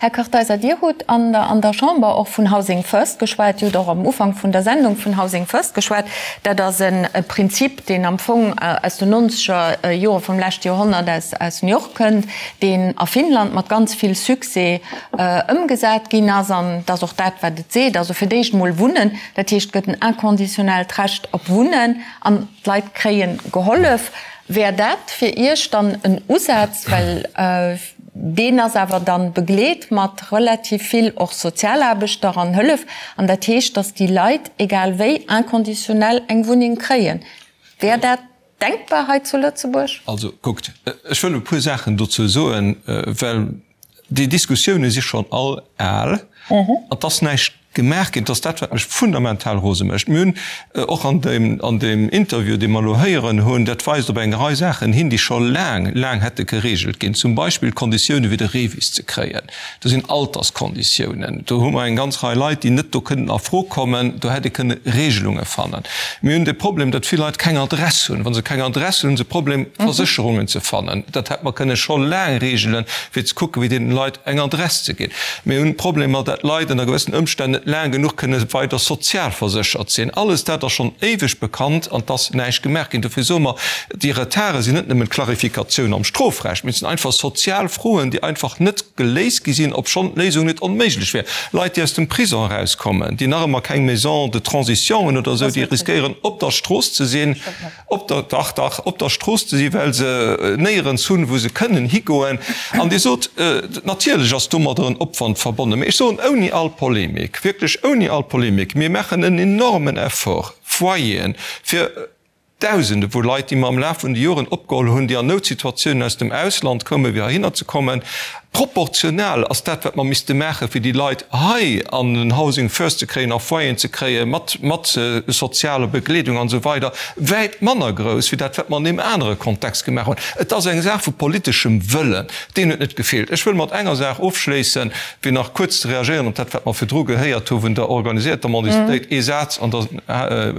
Här Kartheiser, Dir hutt an der Chamber och vun Housing First geschwat. Dir hutt och am Ufank vun der Sendung vun Housing First geschwat. Dat ass e Prinzip, deen am Fong aus den nonzeger Jore vum leschte Joerhonnert aus New York kënnt, deen a Finnland mat ganz vill Succès ëmgesat ginn ass. An et ass och dat, wat et seet, also fir d'éischt emol Wunnen, dat heescht, et gëtt en inconditionellt Recht op Wunnen an d'Leit kréie gehollef. Wär dat fir Iech dann en Usaz? Well Deen ass awer dann begleet mat relativ vill och Sozialaarbechter an Hëllef. An dat heescht, dass déi Leit, egal wéi, inconditionnel eng Wunneng kréien. Wär dat denkbar hei zu Lëtzebuerg? Also kuckt, ech wëll e puer Saachen dozou soen, well déi Diskussioune si schonn all al an et ass näischt Gemaach ginn. Et ass dat, wat mech fundamental rose mécht. Mir hunn och an deem, an deem Interview, dee mer elo héieren hunn, dat weist op eng Rei Saachen hin, déi scho laang, laang hätte geregelt ginn. Zum Beispill d'Konditioune fir de REVIS ze kréien. Do sinn Alterskonditiounen. Do hu mer eng ganz Rei Leit, déi net do kënnen a Fro kommen. Do hätt ee kënne Regelunge fannen. Mir hunn de Problem, datt vill Leit keng Adress hunn. Wa se keng Adress hunn, hu se e Problem, Versécherungen ze fannen. Dat hätt mer kënne scho laang regelen, fir ze kucken, wéi deenen Leit eng Adress ze ginn. Mir hunn Problemer, dat Leit ënner gewëssen Ëmstänn net laang genuch kënne weider sozialverséchert sinn. Alles dat ass schonn éiweg bekannt an 't ass näischt gemaach ginn. Dofir soe mer, déi Retarde sinn net nëmmen d'Klarifikatioun am Strofrecht, mee et sinn einfach sozial Froen, déi einfach net geléist gi sinn, obschonn d'Léisung net onméiglech wär. Leit, déi aus dem Prison erauskommen, déi nach ëmmer keng Maison de transition hunn oder esou, déi riskéieren op der Strooss ze sinn. op der, dach, dach, op der Strooss ze sinn, well se néierens hunn, wou se kënnen higoen. An Dir sot, natierlech ass domadder en Opwand verbonnen, mä ech soen ouni all Polemik, wierklech ouni all Polemik, mir maachen en enormen Effort, Foyeren fir Dausende vu Leit, déi mer am Laf vun de Joren opgeholl hunn, déi an Noutsituatiounen aus dem Ausland koumen, fir heihinner ze kommen. Proportional ass dat, wat mer misste maachen, fir déi Leit hei an den Housing First ze kréien, a Foyeren ze kréien, mat, mat sozialer Begleedung an esou weider, wäit manner grouss wéi dat, wat mer an deem anere Kontext gemaach hunn. Et ass eng Saach vu politeschem Wëllen. Deen huet net gefeelt. Ech wëll mat enger Saach ofschléissen, fir nach kuerz ze reagéieren op dat, wat mer virdru gehéiert hu vun der organisierter Mendicitéit. Ee Saz, an da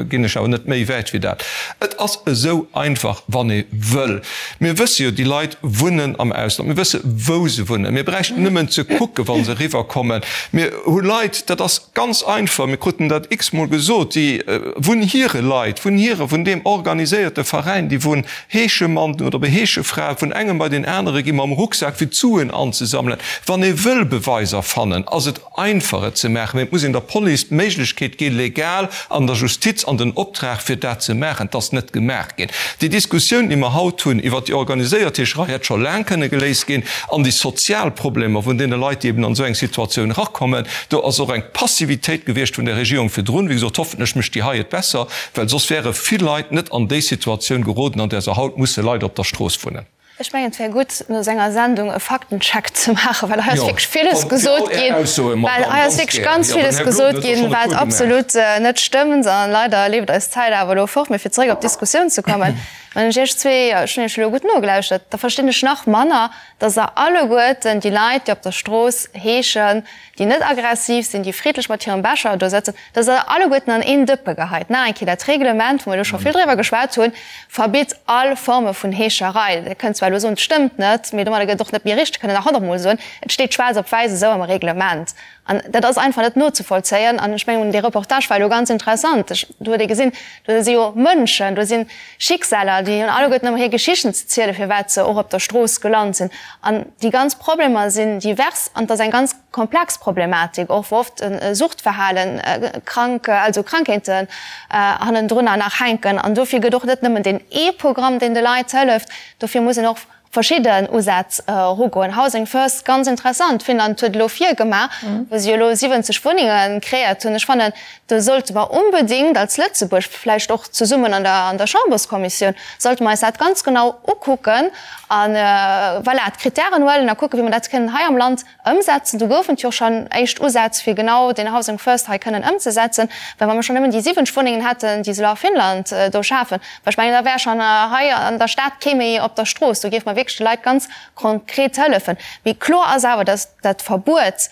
ginn ech awer net méi wäit wéi dat. Et ass esou einfach, wann ee wëll. Mir wësse jo, déi Leit wunnen am Ausland. Mir wësse wou se wunnen. Mir bräichten nëmmen ze kucken, wa se eriwwerkommen. Mir hu Leit, dat ass ganz einfach, mir kruten dat x-mol gesot, déi vun hire Leit, vun hire, vun deem organiséierte Veräin, déi vun Heeschemann oder Heeschefra vun engem bei deen anere gi mam Rucksak fir d'Suen anzesammelen. Wann ee wëll Beweiser fannen, ass et einfach et ze maachen, mee et muss een der Police d'Méiglechkeet gi legal an der Justiz an den Optrag fir dat ze maachen. Et ass net gemaach ginn. Déi Diskussioun, déi mer haut hunn iwwert déi organiséiert Heescherei, hätt scho laang kënne geléist ginn an déi sozial Problemer vun deene Leit, déi eben an esou eng Situatioun erakommen, do ass och eng Passivitéit gewiescht vun der Regierung virdrun. Wéi gesot, hoffentlech mécht déi hei et besser, well soss wäre vill Leit net an déi Situatioun geroden, an där se haut musse leider op der Strooss wunnen. Ech mengen, et wär gutt, no senger Sendung e Faktencheck ze maachen, well hei ass wierklech villes gesot ginn, well hei ass wierklech ganz villes gesot ginn, wat absolut net stëmmt. A leider leeft eis d'Zäit awer elo fort. Mee fir zeréck op d'Diskussioun ze kommen. Wann ech Iech zwee, ech hunn Iech elo gutt nogelauschtert, da verstinn ech nach manner, dass Der alleguerten déi Leit, déi op der Strooss heeschen, déi net aggressiv sinn, déi friddlech mat hirem Becher do sëtzen, dass Der alleguerten an een Dëppe geheit. Nach eng Kéier, dat Reglement, wou mer elo scho vill driwwer geschwat hunn, verbitt all Forme vun Heescherei. Der kënnt zwar elo soen, et stëmmt net, mee domadder gëtt et och net méi richteg, kënnt Der nach honnertmol soen, et steet schwaarz op wäiss esou am Reglement. An dat ass einfach net nozevollzéien. An ech mengen, dee Reportage war elo ganz interessant. Ech, do huet ee gesinn, do si jo Mënschen, do si Schicksaler, déi hunn alleguerten ëmmer hir Geschichten ze zielen, firwat se och op der Strooss gelant sinn. An déi ganz Problemer sinn divers an et ass eng ganz komplex Problematik och, wou oft e Suchtverhalen, krank, also Krankheeten hannendrunner nach hänken. An dofir gëtt och net nëmmen deen ee Programm, deen de Leit hëlleft, dofir muss een och verschidden Usätz erugoen. Housing First, ganz interessant, Finnland huet elo virgemaach, wou si elo 70 Wunnenge kreéiert hunn. Ech fannen, do sollte mer onbedéngt als Lëtzebuerg, vläicht och zesummen an der an der Chamberskommissioun, sollte mer eis dat ganz genau ukucken a voilà, d'Kritären huelen a kucken, wéi mer dat kënnen hei am Land Ëmsetzen. Do goufen et jo schonn éischt Usätz, fir genau deen Housing First hei kënnen ëmzesetzen. Well wa mer schonn nëmmen déi 70 Wunnengen hätten, déi se elo a Finnland do schafen, well ech mengen, da wär schonn hei an der Stad kee méi op der Strooss. Do géife mer wierklech de Leit ganz konkret hëllefen. Mee kloer ass awer, dass dat Verbuet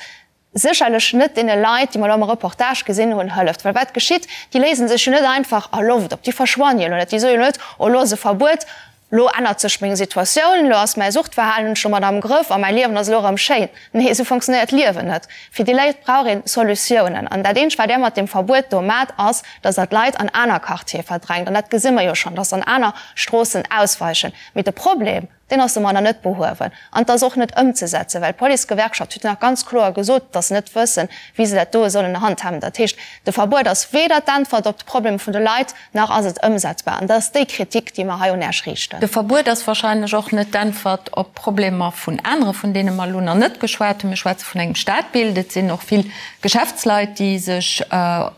sécherlech net deene Leit, déi mer elo am Reportage gesinn hunn, hëlleft. Well wat geschitt? Déi léise sech jo net einfach a Loft op. Déi verschwannen jo elo net. Déi soe jo net, Oh, elo ass e Verbuet, Lo ännert sech meng Situatioun, lo ass mäi Suchtverhalen, hunn ech domat am Grëff a mäi Liewen ass elo erëm schéin. Nee, esou funktionéiert d'Liewen net. Fir déi Léit brauch een Solutiounen. An dat eenzegt, wat där mat deem Verbuet do mat, ass, dass der d'Leit an aner Quartiere verdrängt. An dat gesi mer jo schonn, dass se an aner Stroossen ausweichen. Mee de Problem, deen ass domadder net behuewen. An et ass och net ëmzesetzen, well d'Policegewerkschaft huet jo nach ganz kloer gesot, dass se net wëssen, wéi se dat doe sollen handhaben. Dat heescht, de Verbuet ass weder d'Äntwert op d'Problemer vun de Leit, Nach ass et ëmsetzbar. An dat ass déi Kritik, déi mer hei un Äech riichten. De Verbuet ass wahrscheinlech och net d'Äntwert op Problemer vun anere, vun deene mer elo nach net geschwat hunn. Mir schwätze vun engem Stadbild. Et sinn och vill Geschäftsleit, déi sech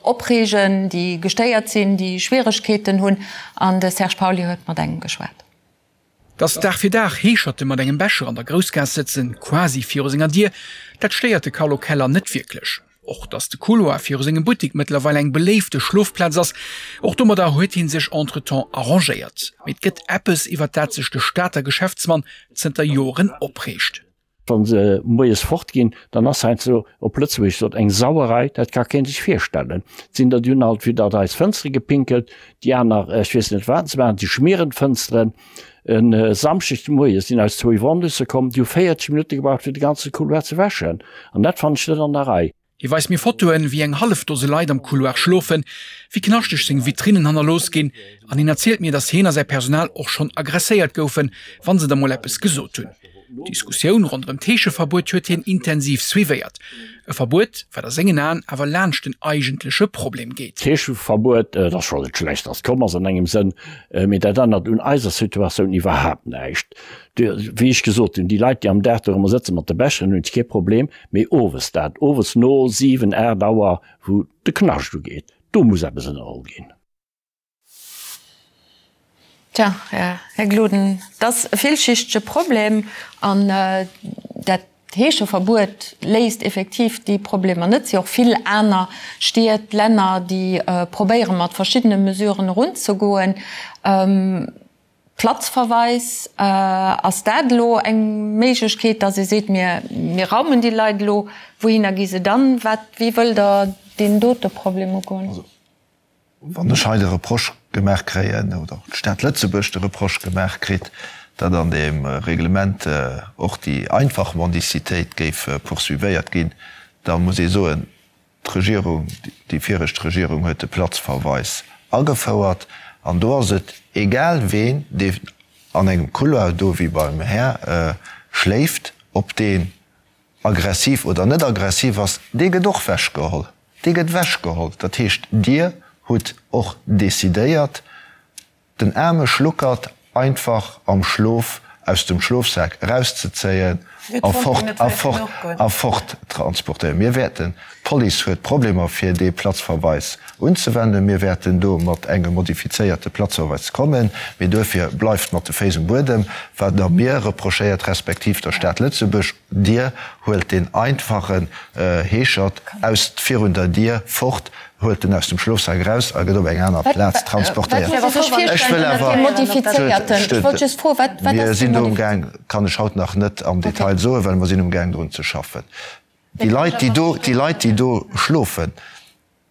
opreegen, déi gestéiert sinn, déi Schwieregkeeten hunn. An de Serge Pauly huet mat engem geschwat. Dass Dag fir Dag Heescherte mat engem Becher an der Groussgaass sëtzen, quasi viru senger Dier, dat stéiert de Carlo Keller net wierklech. Och dass de Couloir viru sengem Buttek mëttlerweil eng beléifte Schlofplaz ass, och domadder huet hie sech entretemps arrangéiert. Mee et gëtt eppes, iwwer dat sech de Stater Geschäftsmann zënter Joren opreegt. Wa se moies fort ginn, dann ass heiansdo, op Lëtzebuergesch gesot, eng Sauerei, dat ka kee sech virstellen. Et sinn der, déi hunn alt widder eis Fënstere gepinkelt, déi aner, ech weess net wat se maachen, déi schmieren d'Fënsteren. E Samschdeg de Moie sinn eis zwou Iwwerhondusse komm, déi hu 40 Minutte gebraucht, fir de ganze Couloir ze wäschen. An dat fannen ech net an der Rei. Hie weist mir Fotoen, wéi eng hallef Dose Leit am Couloir schlofen, wéi knaschteg seng Vitrinnen hannerlooss ginn an hien erzielt mir, datt hien a säi Personal och schonn aggresséiert goufen, wa se da mol eppes gesot hunn. D'Diskussioun ronderëm d'Heescheverbuet huet hien intensiv suivéiert. E Verbuet, wat a sengen Aen awer laanscht den eigentleche Problem geet. D'Heescheverbuet, et ass scho net schlecht, datt et komm ass an engem Sënn, mee dat ännert un eiser Situatioun iwwerhaapt näischt. Wéi ech gesot hunn, déi Leit, déi am Dag dorëmmer sëtze mat de Becheren, hunn kee Problem. Mee owes dat, owes no 7, 8 Auer, wou de Knascht ugeet, do muss eppes ënnerholl ginn. Tja, Här Gloden, et ass e villschichtege Problem an dat Heescheverbuet léist effektiv déi Problemer net. Et si och vill aner Stied, Länner, déi probéiere mat verschiddene Mesuren erunzegoen. Platzverweis, Ass dat elo eng Méiglechkeet, datt ee seet, mir mir raumen déi Leit elo, wouhinner gi se dann? Wat, wéi wëllt Der deen dote Problem ugoen? Also, wann ech hei de Reproche gemaach kréien, oder d'Stad Lëtzebuerg de Reproche gemaach kritt, datt an deem Reglement och déi einfach Mendicitéit géif poursuivéiert ginn, da muss ee soen, D'Regierung, déi viregt Regierung huet de Platzverweis agefouert an do ass et egal ween, dee an engem Couloir do wéi beim Här schléift, ob deen aggressiv oder net aggressiv ass, dee gëtt och wechgeholl. Dee gëtt wechgeholl. Dat heescht, Dir hutt och decidéiert, den aarme Schluckert einfach am Schlof aus dem Schlofsak erauszezéien. A fort, a fort, a fort transportéieren. Mir wäerten, d'Police huet Problemer fir dee Platzverweis unzewenden, mir wäerten do mat engem modifizéierte Platzverweis kommen, mee duerfir bleift mat de Féiss um Buedem, wat Der mir reprochéiert, respektiv der Stad Lëtzebuerg. Dir huelt deen einfachen Heeschert aus virun der Dier fort, huelt en aus dem Schlofsak eraus a gëtt op eng aner Plaz transportéiert. Ech wëll awer, mir sinn do umgaang, kann ech haut nach net am Detail soen, well mer sinn umgaang drun ze schaffen. Déi Leit, déi do, déi Leit, déi do schlofen,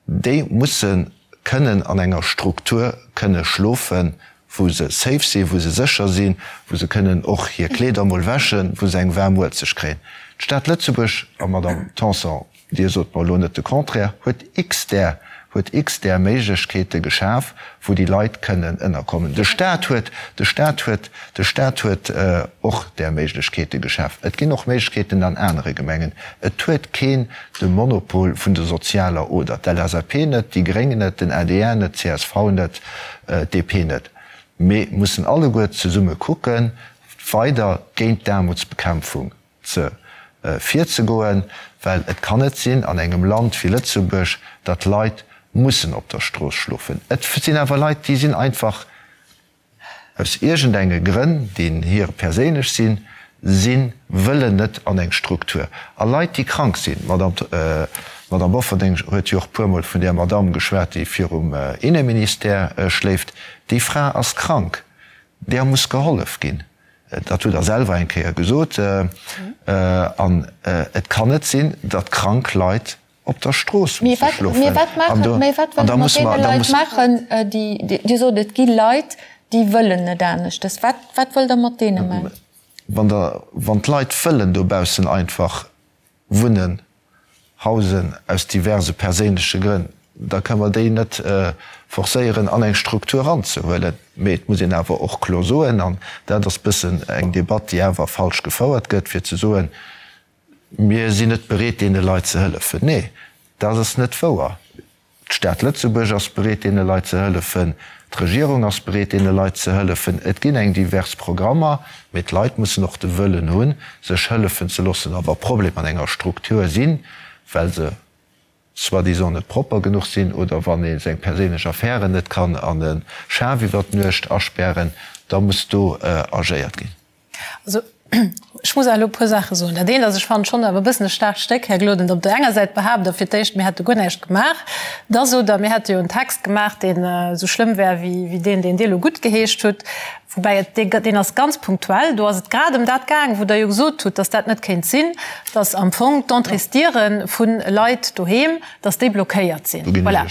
déi musse kënnen an enger Struktur kënne schlofen, wou se safe sinn, wou se sécher sinn, wou se kënnen och hir Kleeder emol wäschen, wou se eng waarm Muelzeg kréien. D'Stad Lëtzebuerg, a Madamm Tanson, Dir sot mer elo net de Contraire, huet x-där, huet x-där Méiglechkeete geschaf, wou déi Leit kënnen ënnerkommen. De Stat huet, de Stat huet, de Stat huet och där Méiglechkeete geschaf. Et ginn och Méiglechkeeten an anere Gemengen. Et huet keen de Monopol vun der sozialer Oder. D'LSAP net, déi Gréng net, den adr net, d'CSV net, d'DP net. Mir mussen alleguer zesumme kucken, weider géint d'Aarmutsbekämpfung ze virzegoen, well et kann net sinn an engem Land wéi Lëtzebuerg, datt Leit mussen op der Strooss schlofen. Et sinn awer Leit, déi sinn einfach aus iergendenge Grënn, déi hir perséinlech sinn, si wëllen net an eng Struktur. A Leit, déi krank sinn, d'Madame Bofferding huet jo och puermol vun där Madame geschwat, déi virum Inneministère schléift, déi Fra ass krank, där muss gehollef ginn. Dat hutt Der selwer eng Kéier gesot. An et kann net sinn, datt krank Leit op der Strooss musse schlofen. Mee wat maachen, mee wat wëllt Der mat deene Leit maachen, déi, Dir sot, et gi Leit, déi wëllen net aneschtes. Wat, wat wëllt Der mat deene maachen? Wann Der, wann d'Leit wëllen dobaussen einfach wunnen, hausen, aus diverse perséinleche Grënn, da kënne mer déi net forcéieren an eng Struktur eranzehuelen. Mee et muss een awer och kloer soen, an dat ass bëssen eng Debatt, déi awer falsch gefouert gëtt, fir ze soen, mir sinn net bereet deene Leit ze hëllefen. Nee, dat ass net wouer. D'Stad Lëtzebuerg ass bereet deene Leit ze hëllefen, d'Regierung ass bereet deene Leit ze hëllefen. Et ginn eng divers Programmer, mee d'Leit mussen och de Wëllen hunn, sech hëllefen ze loossen. A wa Problemer an enger Struktur sinn, well se soi-disant net propper genuch sinn oder wann ee seng perséinlech Affären net kann an e Schaf iwwer d'Nuecht aspären, da muss do agéiert ginn. Also, ech muss awer elo e puer Saache soen. Dat eent ass, ech fannen schonn awer e bëssen e staarkt Stéck, Här Gloden, datt op der enger Säit behaapt Der fir d'éischt, mir hätte guer näischt gemaach. Da sot Der, mir hätte jo en Text gemaach, deen esou schlëmm wär wéi deen, deen Dir elo guttgeheescht hutt. Woubäi et, dee, deen ass ganz punktuell. Do ass et grad ëm dat gaang, wou Der jo gesot hutt, datt dat net kéint sinn, datt am Fong d'Entréesdiere vu Leit doheem, dass déi blockéiert sinn. Voilà.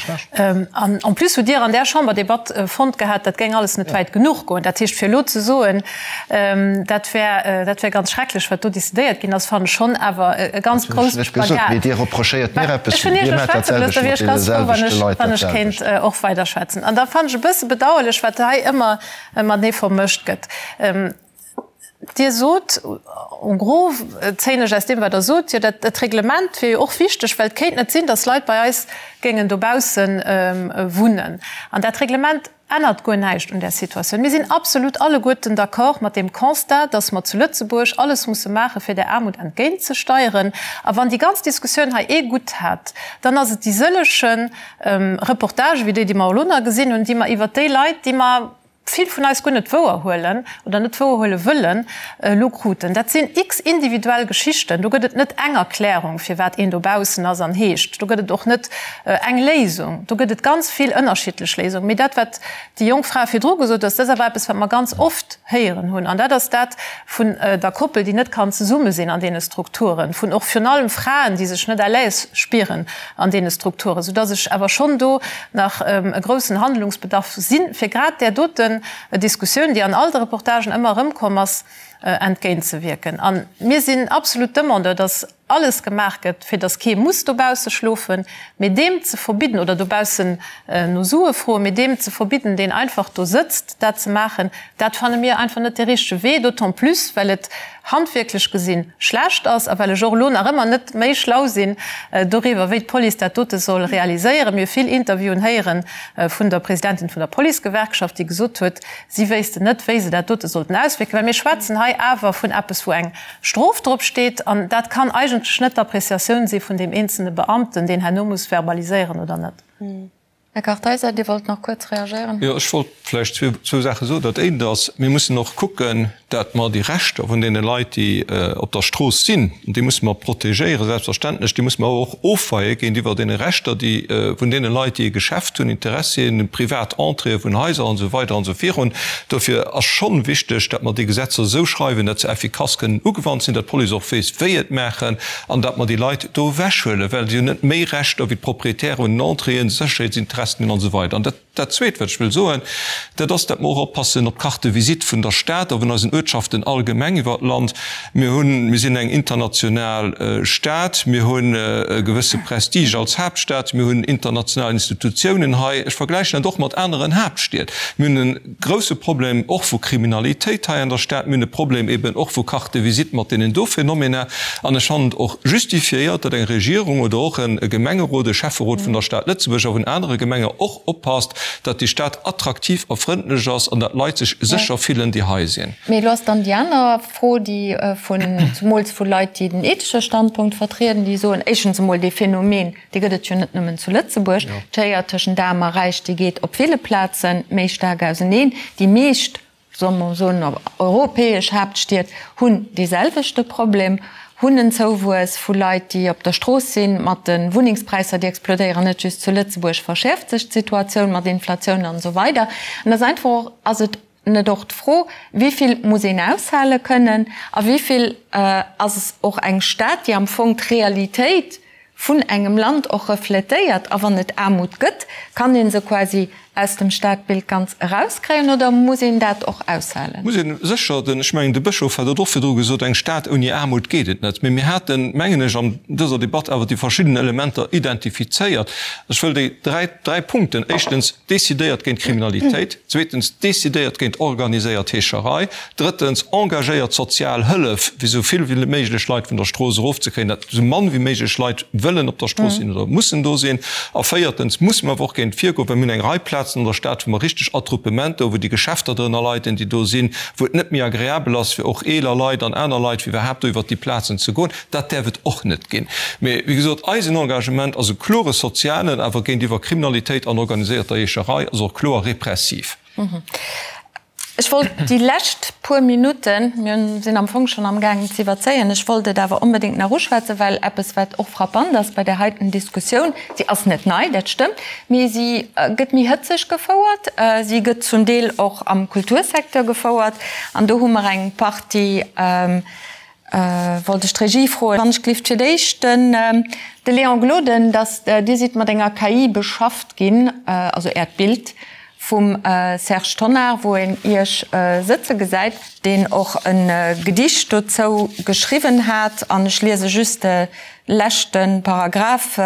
An en plus hutt Dir an där Chamberdebatt fonnt gehat, dat géing alles net wäit genuch goen. Dat heescht, fir elo ze soen, dat wär, dat wär ganz schrecklech, wat do decidéiert ginn ass, fannen ech schonn awer e ganz grousse Spagat. Mee Dir reprochéiert mir eppes, Ech hunn Iech elo schwätze gelooss, da wier ech ganz frou, wann ech, wann ech kéint och weiderschwätzen. An da fannen ech e bësse bedauerlech, wat hei ëmmer matenee vermëscht gëtt. Dir sot, en gros zéien ech aus deem, wat Der sot, jo dat Reglement wier jo och wichteg, well et kéint net sinn, datt Leit bei eis géingen dobausse wunnen. An dat Reglement ännert guer näischt un där Situatioun. Mir sinn absolut alleguerten d'accord mat deem Constat, datt mer zu Lëtzebuerg alles musse maachen, fir där Aarmut entgéintzesteieren. A wann déi ganz Diskussioun hei ee Gutt hat, dann ass et déi sëlleche Reportagen, wéi déi, déi mer elo nach gesinn hunn, déi mer iwwert déi Leit, déi mer, vill vun eis guer net wouer huelen oder net wouer huele wëllen, elo kruten. Dat sinn x individuell Geschichten. Do gëtt et net eng Erklärung, firwat een dobaussen ass an heescht. Do gëtt et och net eng Léisung. Do gëtt et ganz vill ënnerschiddlech Léisungen. Mee dat, wat déi jonk Fra virdru gesot huet, dat ass awer eppes, wat mer ganz oft héieren hunn. An dat ass dat vun der Koppel, déi net kann zesumme sinn an deene Strukturen, vun och virun allem Fraen, déi sech net à l'aise spieren an deene Strukturen, soudass ech awer schonn do nach e groussen Handlungsbedarf sinn, fir grad där doten Diskussioun, déi an all de Reportagen ëmmer erëmkomm ass, entgéintzewierken. A mir sinn absolut Demandeur, dass alles gemaach gëtt, fir dass kee muss dobausse schlofen, mee deem ze verbidden, oder dobaussen no Sue froen, mee deem ze verbidden, deen einfach do sëtzt, dat ze maachen, dat fanne mir einfach net dee richtege Wee, d'autant plus well et handwierklech gesinn schlecht ass a well ech och elo nach ëmmer net méi schlau sinn doriwwer, wéi d'Police dat dote soll realiséieren. Mir hu vill Interviewen héiere vun der Presidentin vun der Policegewerkschaft, déi gesot huet, si wéissten net, wéi se dat dote sollten auswierken, well mir schwätzen hei. hei awer vun eppes, wou eng Strof drop steet. An dat kann eigentlech net d'Appreciatioun si vun deem eenzelne Beamten, deen herno muss verbaliséieren oder net. Här Kartheiser, Dir wollt nach kuerz reagéieren. Jo, ech wollt vläicht zwou Saache soen. Dat eent ass, mir mussen och kucken, dat mer déi Rechter vun deene Leit, déi op der Strooss sinn, déi musse mer protegéieren, selbstverständlech, déi musse mer awer och ofweie géintiwwer deene Rechter, déi vun deene Leit, déi e Geschäft hunn, Interessien, privat Entréeë vun Haiser an esou weider an esou virun. Dofir ass schonn wichteg, dat mer déi Gesetzer esou schreiwen, dat se effikass kënnen ugewannt sinn, dat d'Police och weess, wéi et maachen an dat mer déi Leit do ewechhuelen, well si hunn net méi Rechter wéi d'Proprietäre un den Entréeën, Sécherheetsinteressen hunn an esou weider. An dat. Dat Zweet, wat ech wëll soen, dat ass, dat mer och oppassen op d'Carte de visite vun der Stad a vun eisen Uertschaften allgemeng iwwert d'Land. Mir hunn, mir sinn eng international Stad, mir hunn e gewësse Prestige als Haaptstad, mir hunn international Institutiounen hei. Ech vergläichen dat och mat aneren Haaptstied. Mir hunn e grouse Problem och vu Kriminalitéit hei an der Stad. Mir hunn e Problem eben och vu Carte de visite mat deenen do Phänomener. An ech fannen et och justifiéiert, datt eng Regierung oder och e Gemengerot, e Schäfferot vun der Stad Lëtzebuerg a vun anere Gemenge och oppasst, datt déi Stad attraktiv a frëndlech ass an datt d'Leit sech sécher fillen, déi hei sinn. Mee elo ass dann déi aner Fro, déi vun, zumools vu Leit, déi den ethesche Standpunkt vertrieden, déi soen, éischtens emol, dee Phänomen, dee gëtt et jo net nëmmen zu Lëtzebuerg, d'Schéier tëschent Aarm a Räich, déi geet op ville Plaze méi staark auseneen. Déi meescht solle mer soen, europäesch Haaptstied hunn dee selwechte Problem, hunn en Zouwuess vu Leit, déi op der Strooss sinn. Mat de Wunnengspräisser, déi explodéieren, net just zu Lëtzebuerg, verschäerft sech d'Situatioun mat Inflatioun an esou weider. An ass einfach och, ass et net och d'Fro, wéi vill muss een aushale kënnen a wéi vill ass och eng Stad, déi am Fong d'Realitéit vun engem Land och refletéiert? A wann et Aarmut gëtt, kann ee se quasi aus dem Stadbild ganz erauskréien oder muss een dat och aushalen? Muss een sécher. Den, ech mengen, de Bëschof hat et och virdru gesot, eng Stad ouni Aarmut geet et net. Mee mir haten, mengen ech, an dëser Debatt awer déi verschidden Elementer identifizéiert. Ech wëll déi dräi, dräi Punkten, éischtens, decidéiert géint Kriminalitéit, zweetens, decidéiert géint organiséiert Heescherei, Drëttens, engagéiert sozial Hëllef, fir esou vill wéi méiglech Leit vun der Strooss erofzekréien, datt esou mann wéi méiglech Leit wëllen op der Strooss sinn oder mussen do sinn. A véiertens musse mer awer och géint virgoen, well mir hunn eng Rei Plazen an der Stad, wou mer richteg Attroupementer hu, wou déi Geschäfter drënner leiden, déi do sinn, wou et net méi agreabel ass fir och eeler Leit an aner Leit, fir iwwerhaapt do iwwert déi Plazen ze goen. Dat däerf et och net ginn. Mee, wéi gesot, eisen Engagement ass e klore sozialen, awer géintiwwer Kriminalitéit an organiséierter Heescherei ass och kloer repressiv. Ech wollt déi lescht puer Minutten, mir sinn am Fong schonn amgaangen ze iwwerzéien, ech wollt et awer onbedéngt nach uschwätzen, well eppes, wat och frappant ass bei där heiten Diskussioun, si ass net nei, dat stëmmt, mee si gëtt méi hëtzeg gefouert, si gëtt zum Deel och am Kultursecteur gefouert an do hu mer eng Partie, wollt ech d'Regie froen, wann ech gelift fir d'éischt den de Léon Gloden, dass Dir sidd mat enger KI beschafft ginn, also Äert Bild vum Serge Tonnar, wou een Iech sëtze gesäit, deen och e Gedicht dozou geschriwwen hat, an ech liese just de leschte Paragraph,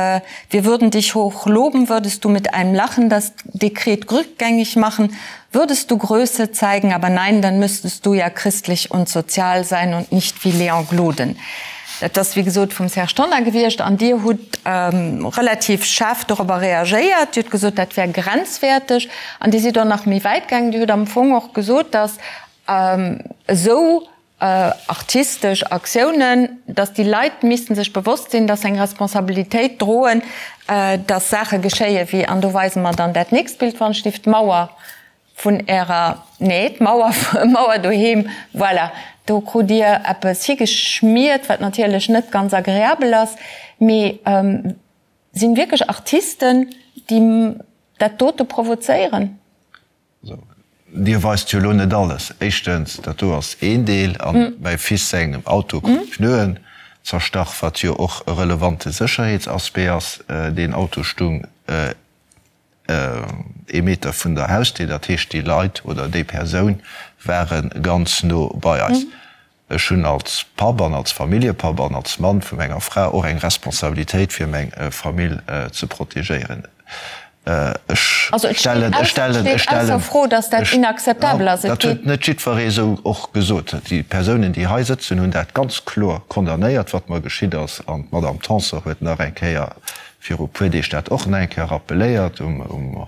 Wir würden dich hoch loben, würdest du mit einem Lachen das Dekret rückgängig machen, würdest du Größe zeigen, aber nein, dann müsstest du ja christlich und sozial sein und nicht wie Léon Gloden. Dat ass wéi gesot vum Serge Tonnar gewiescht an Dir hutt relativ schaarf dorobber reagéiert. Dir hutt gesot, dat wär grenzwäerteg an Dir sidd och nach méi wäit gaangen. Dir hutt am Fong och gesot, datt esou artistesch Aktiounen, datt déi Leit misste sech bewosst sinn, datt se eng Responsabilitéit droen, datt Saache geschéie wéi, an do weise mer dann dat nächst Bild, wann ech dierf, d'Mauer vun Ärer, nee, d'Mauer, Mauer doheem, voilà, do krut Dir eppes higeschmiert, wat natierlech net ganz agreabel ass, mee sinn wierklech Artisten, déi dat dote provozéieren? Dir weist jo elo net alles. Éischtens, dat do ass een Deel, a mäi Fils sengem Auto krut d'Pneuen zerstach, wat jo och e relevante Sécherheetsaspect ass. Deen Auto stung ee Meter vun der Hausdier, dat heescht déi Leit oder déi Persoun ware ganz no bei eis. Ech hunn als Papp an als Familljepapp an als Mann vu menger Fra och eng Responsabilitéit fir meng Famill ze protegéieren. Ech stellen, ech stellen, ech stellen, dat huet net jiddweree esou och gesot. Déi Persounen, déi hei sëtzen, hunn dat ganz kloer condamnéiert, wat mer geschitt ass an d'Madame Tanson huet nach eng Kéier. viru puer Deeg dat och nach eng Kéier rappeléiert, um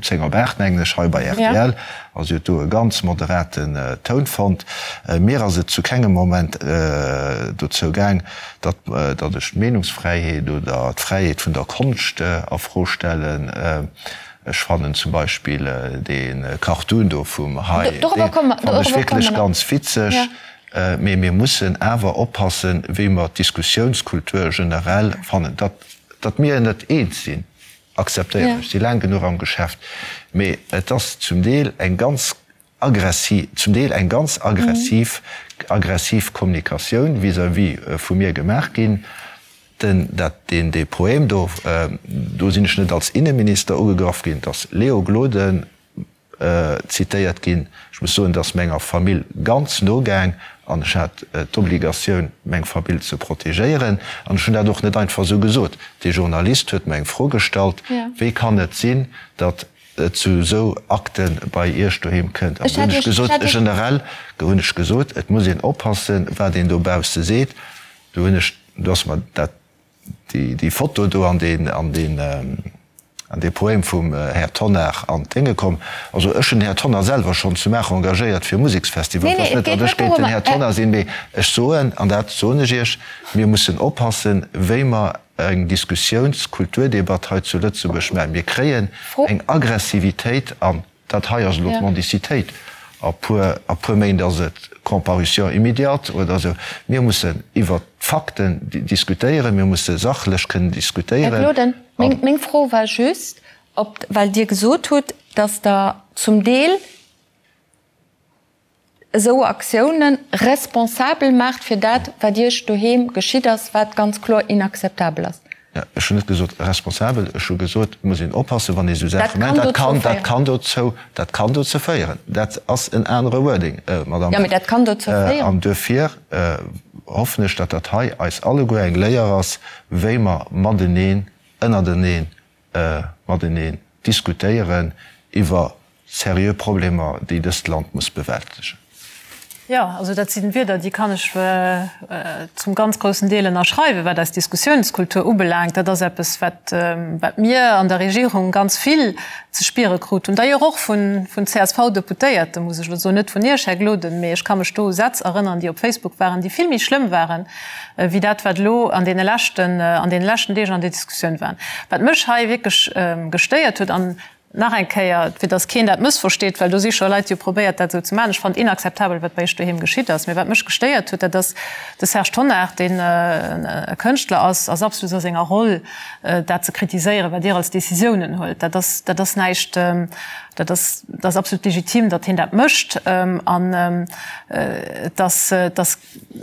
10 op 8, mengen ech, hei bei rtl. A si huet do e ganz moderaten Toun fonnt. Mir ass et zu kengem Moment dozou gaang, datt ech d'Meenungsfräiheet oder d'Fräiheet vun der Konscht a Fro stellen. Ech fannen zum Beispill dee Cartoon do vum Hai, dee fannen ech wierklech ganz witzeg. Mee mir mussen awer oppassen, wéi mer d'Diskussiounskultur generell fannen. Datt mir net eens sinn, akzeptéieren ech, si laang genuch am Geschäft. Mee et ass zum Deel eng ganz aggressiv, zum Deel eng ganz aggressiv, aggressiv Kommunikatioun vis-à-vis vu mir gemaach ginn. Den, dat, deen, dee Poème do, do sinn ech net als Inneminister ugegraff ginn, et ass Léo Gloden zitéiert ginn. Ech muss soen, et ass menger Famill ganz no gaang an ech hat d'Obligatioun, meng Famill ze protegéieren. An ech hunn dat och net einfach esou gesot. Dee Journalist huet mer eng Fro gestallt, Wéi kann et sinn, datt et zu esou Akte bei Iech doheem kënnt? An do hunn ech gesot, generell hunn ech gesot, et muss een oppassen, wat een dobausse seet. Do hunn ech, do ass mer dat, déi Foto do an deen, an deen, an dee Poème vum Här Tonnar an d'Dénge komm. Also ech hunn den Här Tonnar selwer schonn zu Maacher engagéiert fir e Museksfestival. Et ass net, datt ech géint den Här Tonnar sinn, mee ech soen, an dat soen ech Iech, mir mussen oppassen, wéi mer eng Diskussiouns-, Kulturdebatt hei zu Lëtzebuerg maachen. Mir kréien eng Aggressivitéit an Dat hei ass elo d'Mendicitéit. A puer, a puer Méint ass et Comparution immédiate oder esou. Mir mussen iwwert d'Fakten diskutéieren, mir musse sachlech kënnen diskutéieren. Här Gloden, meng, meng Fro war just, ob, well Dir gesot hutt, dass Der zum Deel esou Aktiounen responsabel maacht fir dat, wat Iech doheem geschitt ass, wat ganz kloer inakzeptabel ass. Jo, ech hunn net gesot responsabel, ech hu gesot, et muss een oppassen, wann ee esou Saache mécht. Dat kann, dat kann dozou, dat kann dozou féieren. Dat ass en anere Wording, Madamm. Jo, mee dat kann dozou féieren. An duerfir hoffen ech, datt dat hei eis alleguer eng Léier ass, wéi mer mateneen, ënnerteneen, mateneen diskutéieren iwwer seriö Problemer, déi dëst Land muss bewältegen. Jo, also dat si Wierder, déi kann ech zum ganz groussen Deel ënnerschreiwen, wat eis Diskussionskultur ubelaangt. Dat ass eppes, wat mir an der Regierung ganz vill ze spiere krut hunn, d'ailleurs och vun CSV-Deputéierten, muss ech elo soen, net vun Iech, Här Gloden, mee ech ka mech do u Sätz erënnern, déi op Facebook waren, déi vill méi schlëmm waren, wéi dat, wat elo an deene leschten, an deene leschten Deeg an der Diskussioun war. Wat mech hei wierklech gestéiert huet, an Nach eng Kéier, fir dass keen dat mëssversteet, well do si scho Leit, déi hu probéiert, dat esou ze maachen, Ech fannen et inakzeptabel, wat bei Iech doheem geschitt ass. Mee wat mech gestéiert huet, dat ass de Serge Tonnar, deen e Kënschtler ass, ass absolut a senger Roll, dat ze kritiséieren, wat Dir als Décisiounen huelt. Dat ass, dat ass näischt, dat ass, dat ass absolut legitim, datt hien dat mécht. An et ass, et ass.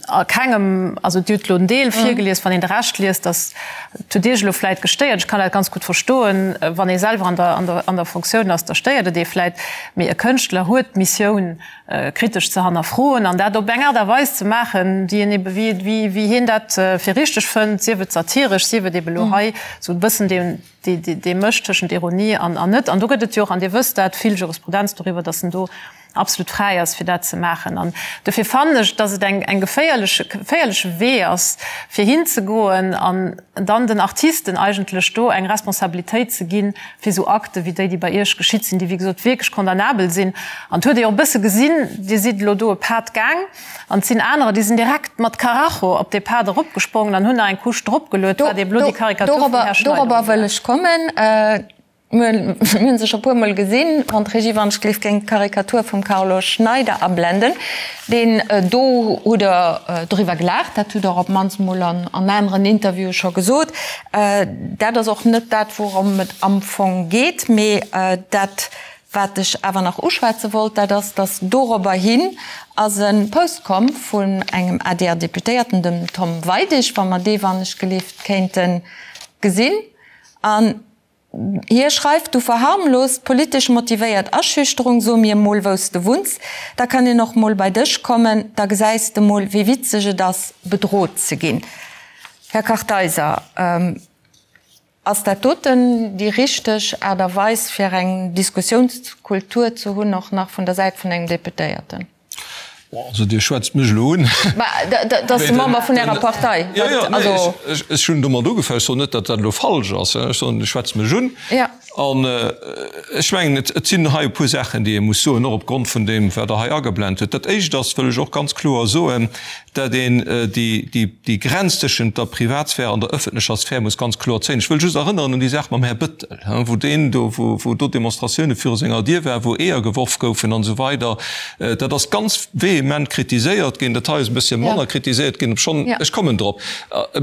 A kengem, also Dir hutt elo en Deel virgelies, wann een de Rescht liest, dass, et huet Iech elo vläit gestéiert, ech kann dat ganz gutt verstoen, wann ee selwer an der, an der, an der Fonctioun ass, da stéiert et ee vläit, mee e Kënschtler huet d'Missioun, kritesch ze hannerfroen an dat op eng Aart a Weis ze maachen, déi en ebe, wéi, wéi, wéi hien dat fir richteg fënnt, sief et satiresch, sief et ebe elo hei esou e bëssen deen, dee, dee, dee Mësch tëschent Ironie an, an net. An do gëtt et jo och, an Dir wësst dat, vill Jurisprudenz doriwwer, dass en do absolut fräi ass, fir dat ze maachen. An dofir fannen ech, dass et eng, eng geféierleche, geféierleche Wee ass, fir hinzegoen an dann den Artisten eigentlech do eng Responsabilitéit ze ginn, fir esou Akte wéi déi, déi bei Iech geschitt sinn, déi wéi gesot wierklech condamnabel sinn. An et huet ee jo och e bësse gesinn, Dir sidd elo do e Pad gaang an et sinn anerer, déi sinn direkt mat Karacho op dee Pad eropgesprongen an hunn nach eng Couche dropgeluet, wat eeben elo déi Karikatur vum Här Schneider Dorobber wëll ech kommen. Mir hunn se scho puer mol gesinn. Wann d'Regie wann ech gleef géing d'Karikatur vum Carlo Schneider ablenden. Deen do hutt Der doriwwer gelaacht, dat hutt Der op d'mannst mol an aneren Interviewe scho gesot. Dat ass och net dat wourëm et am Fong geet, mee dat wat ech awer nach uschwätze wollt, dat ass, datt dorobber hin ass e Post komm vun engem ADR-Deputéierten, dem Tom Weidig, wa mer dee wann ech gelift kéinte gesinn. An Hie schreift, Du verharmlost politesch motivéiert Aschüchterung, so mir mol wous de wunns, da kann een och mol bei dech kommen, da gesäis de mol wéi witzeg et ass bedrot ze ginn. Här Kartheiser, ass dat doten déi richteg Aart a Weis fir eng Diskussiounskultur ze hunn, och nach vun der Säit vun engem Deputéierten? Also Dir schwätzt mech elo un. Mä dat ass de Member vun Ärer Partei. Jo, jo, nee, ech hunn domat ugefaangen. Ech soen net, datt dat elo falsch ass. Ech soen, Dir schwätzt mech un. An ech mengen, et sinn hei e puer Saachen, déi ee muss soen, och opgrond vun deem, wat Der hei ageblent hutt. Dat Éischt ass, wëll ech och ganz kloer soen, dat een déi Grenz tëschent der Privatsphär an der ëffentlecher Sphär muss ganz kloer zéien. Ech wëll just erënneren un déi Saach mam Här Bëttel, wou deen do, wou do Demonstratioune viru senger Dier waren, wou Eeër geworf goufen an esou weider. Dat ass ganz vehement kritiséiert ginn. Dat hei ass e bëssche manner kritiséiert ginn, obschonn, ech kommen drop,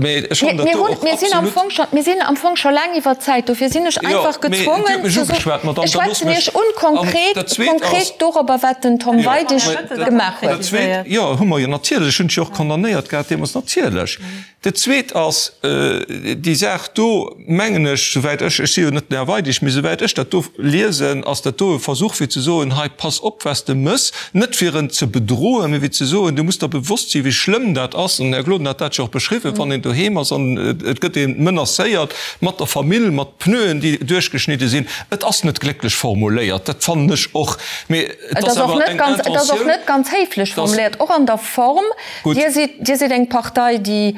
mä ech fannen dat do och absolut. Mir sinn am Fong scho laang iwwer d'Zäit, dofir sinn ech einfach gezwongen ze soen, ech schwätzen Iech un konkret, konkret dorobber, wat den Tom Weidig gemaach huet. Dat Zweet, jo, hu mer jo natierlech, ech hunn et jo och condamnéiert gehat deemools, natierlech. Dat Zweet ass, déi Saach do, mengen ech, souwäit ech, ech si jo net den Här Weidig, mee souwäit ech dat do liesen, ass dat do e Versuch fir ze soen, hei pass op wat s de mëss, net fir en ze bedroen, mee fir ze soen, du muss der bewosst sinn, wéi schlëmm dat ass, an den Här Gloden hat dat jo och beschriwwen, wann een doheem ass an et gëtt ee menacéiert mat der Famill, mat Pneuen, déi duerchgeschnidde sinn. Et ass net glécklech formuléiert, dat fannen ech och, mee et ass awer eng Intentioun. Et ass och net ganz héiflech formuléiert, och an der Form. Dir sidd, Dir sidd eng Partei, déi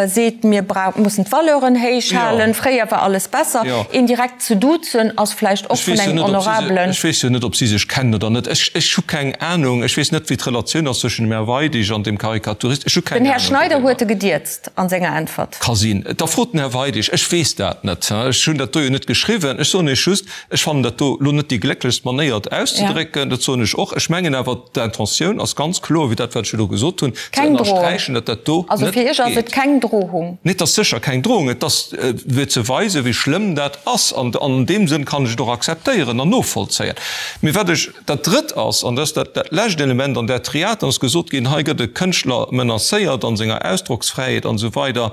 seet, mir mussen d'Valeuren héich halen, fréier war alles besser. Een direkt ze duzen ass vläicht och vun engem honorabelen. Ech weess jo net, ob si sech kennen oder net. Ech, ech hu keng Anung. Ech weess net, wéi d'Relatioun ass zwëschen dem Här Weidig an dem Karikaturist. Ech hu keng Ahnung. Den Här Schneider huet e gedierzt a senger Äntwert. Ka sinn. Da frot den Här Weidig. Ech weess dat net. Ech hunn dat do jo net geschriwwen. Ech soen Iech just, ech fannen dat do elo net déi glécklechst Manéier, et auszedrécken. Dat soen ech och. Ech mengen awer, D'Intentioun ass ganz kloer, wéi dat, wat ech elo gesot hunn, ze ënnersträichen, datt dat do net geet. Also fir Iech ass et keng Drohung? Nee, et ass sécher keng Drohung. Et ass fir ze weisen, wéi schlëmm dat ass. An an deem Sënn kann ech et och akzeptéieren an novollzéien. Mee wat ech, dat Drëtt ass, an dat ass dat dat lescht Element an där Triad, dann ass gesot ginn, hei gëtt e Kënschtler menacéiert a senger Ausdrocksfräiheet an esou weider.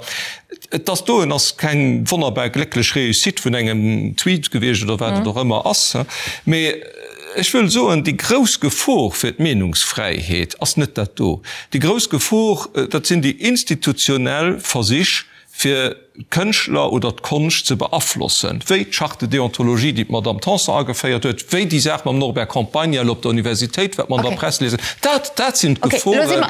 Et ass doen ass keng wonnerbar glécklech Réussite vun engem Tweet gewiescht oder wat et och ëmmer ass. Mee ech wëll soen, déi grouss Gefor fir d'Meenungsfräiheet ass net dat do. Déi grouss Gefor, dat sinn déi institutionell Versich, fir d'Kënschtler oder d'Konscht ze beaflossen, wéi d'Charte de déontologie, déi d'Madame Tanson ageféiert huet, wéi déi Saach mam Norbert Campagna elo op der Universitéit, wat mer an der Press liesen. Dat, dat sinn d'Geforen fir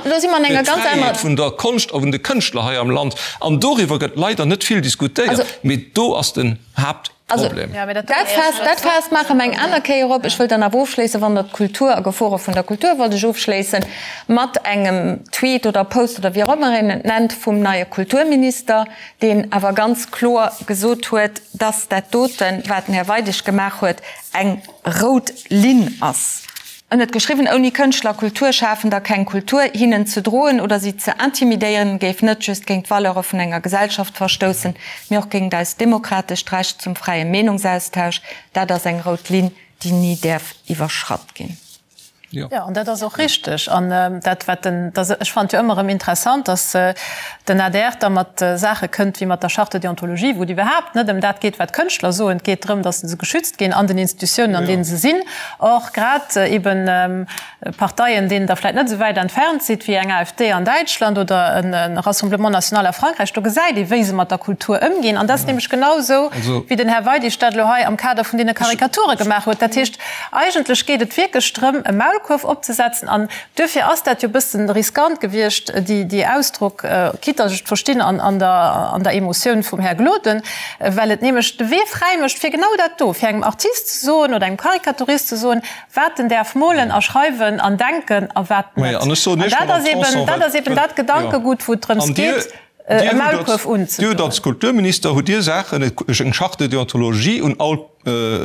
d'Fräiheet vun der Konscht a vun de Kënschtler hei am Land. An doriwwer gëtt leider net vill diskutéiert, mee do ass den Haaptproblem. Dat Faass, dat Faass maache mer eng aner Kéier op. Ech wëll dann awer ofschléissen, wann Der d'Kultur a Gefore vun der Kultur wollt ech ofschléissen mat engem Tweet oder Post oder wéi och ëmmer een et nennt vum neie Kulturminister, deen awer ganz kloer gesot huet, dass dat doten, wat den Här Weidig gemaach huet, eng rout Linn ass. En huet geschriwwen, Ouni Kënschtler, Kulturschafender keng Kultur. Hinnen ze droen oder si ze intimidéieren, géif net just géint d'Valeure vun enger Gesellschaft verstoussen, mee och géingt eist demokratescht Recht zum fräie Meenungsaustausch. Dat ass eng rout Linn, déi ni däerf iwwerschratt ginn. Jo, an dat ass och richteg. An dat, wat den, ech fannen et jo ëmmer erëm interessant, datt den adr da mat Saache kënnt wéi mat der Charte de déontologie, wou et iwwerhaapt net ëm dat geet, wat d'Kënschtler soen. Et geet drëm, datt se geschützt ginn an den Institutiounen, an deene se sinn. Or, grad eben Parteien, deenen Der vläicht net esou wäit entfernt sidd, wéi eng AfD an Däitschland oder e Rassemblement national a Frankräich, do gesäit ee wéi se mat der Kultur ëmginn. An dat ass nämlech genau esou, wéi den Här Weidig dat elo hei am Kader vun deene Karikature gemaach huet. Dat heescht, eigentlech geet et wierklech drëm, e Maulkuerf opzesetzen. An duerfir ass dat jo e bëssen riskant gewiescht, déi Ausdrock, quitte datt ech et verstinn an der Emotioun vum Här Gloden, well et nämlech de Wee fräi mécht fir genau dat do, fir engem Artist ze soen oder engem Karikaturist ze soen, wat en däerf molen a schreiwen an denken a wat net. An dat ass eben, dat ass eben dat Gedankegut, wou et drëms geet, e Maulkuerf unzedoen. Dir hutt als Kulturminister hutt Dir Saachen, eng Charte de déontologie un all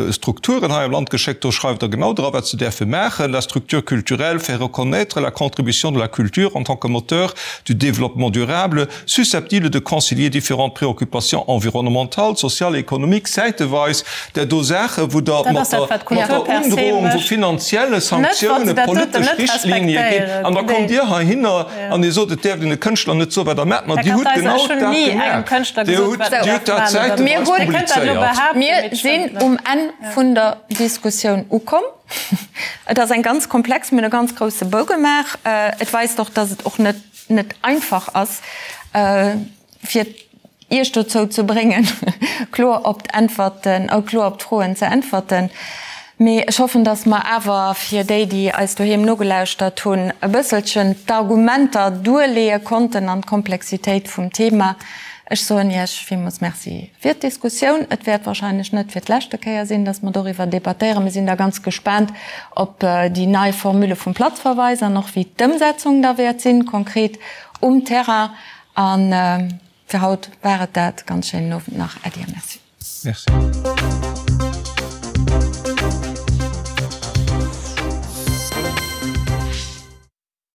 Strukturen hei am Land geschéckt, do schreift Der genau dra wat se däerfe maachen, La structure culturelle fait reconnaître la contribution de la culture en tant que moteur du développement durable, susceptible de concilier différentes préoccupations environnementales, sociales et économiques, säiteweis där do Saachen, wou Der mat der Undrohung vu finanzielle Sanktiounen politesch Richtlinie gitt, an da kommt Dir heihinner an Dir sot, et däerft een de Kënschtler net soen, wat Der maacht. Ma Dir hutt genau dat gemaach. Dir hutt dat säiteweis publizéiert. Mir sinn um Enn vun der Diskussioun ukomm. Et ass eng ganz komplex, mir hunn e ganz grousse Bou gemaach. Et weist och, dass et och net net einfach ass, fir Iech dozou ze bréngen, kloer op d'Äntwerten, kloer op d'Froen ze äntwerten. Mee ech hoffen, dass mer awer fir déi, déi eis doheem nogelauschtert hunn, e bësselchen d'Argumenter duerleeë konnten an d'Komplexitéit vum Thema. Ech soen Iech villmools Merci fir d'Diskussioun. Et wäert wahrscheinlech net fir d'leschte Kéier sinn, dass mer doriwwer debattéieren. Mir sinn da ganz gespaant op déi nei Formule vum Platzverweis an och wéi d'Ëmsetzung da wäert sinn, konkret um Terrain. A fir haut war et dat. Ganz schéinen Owend nach. Äddi a Merci. Merci.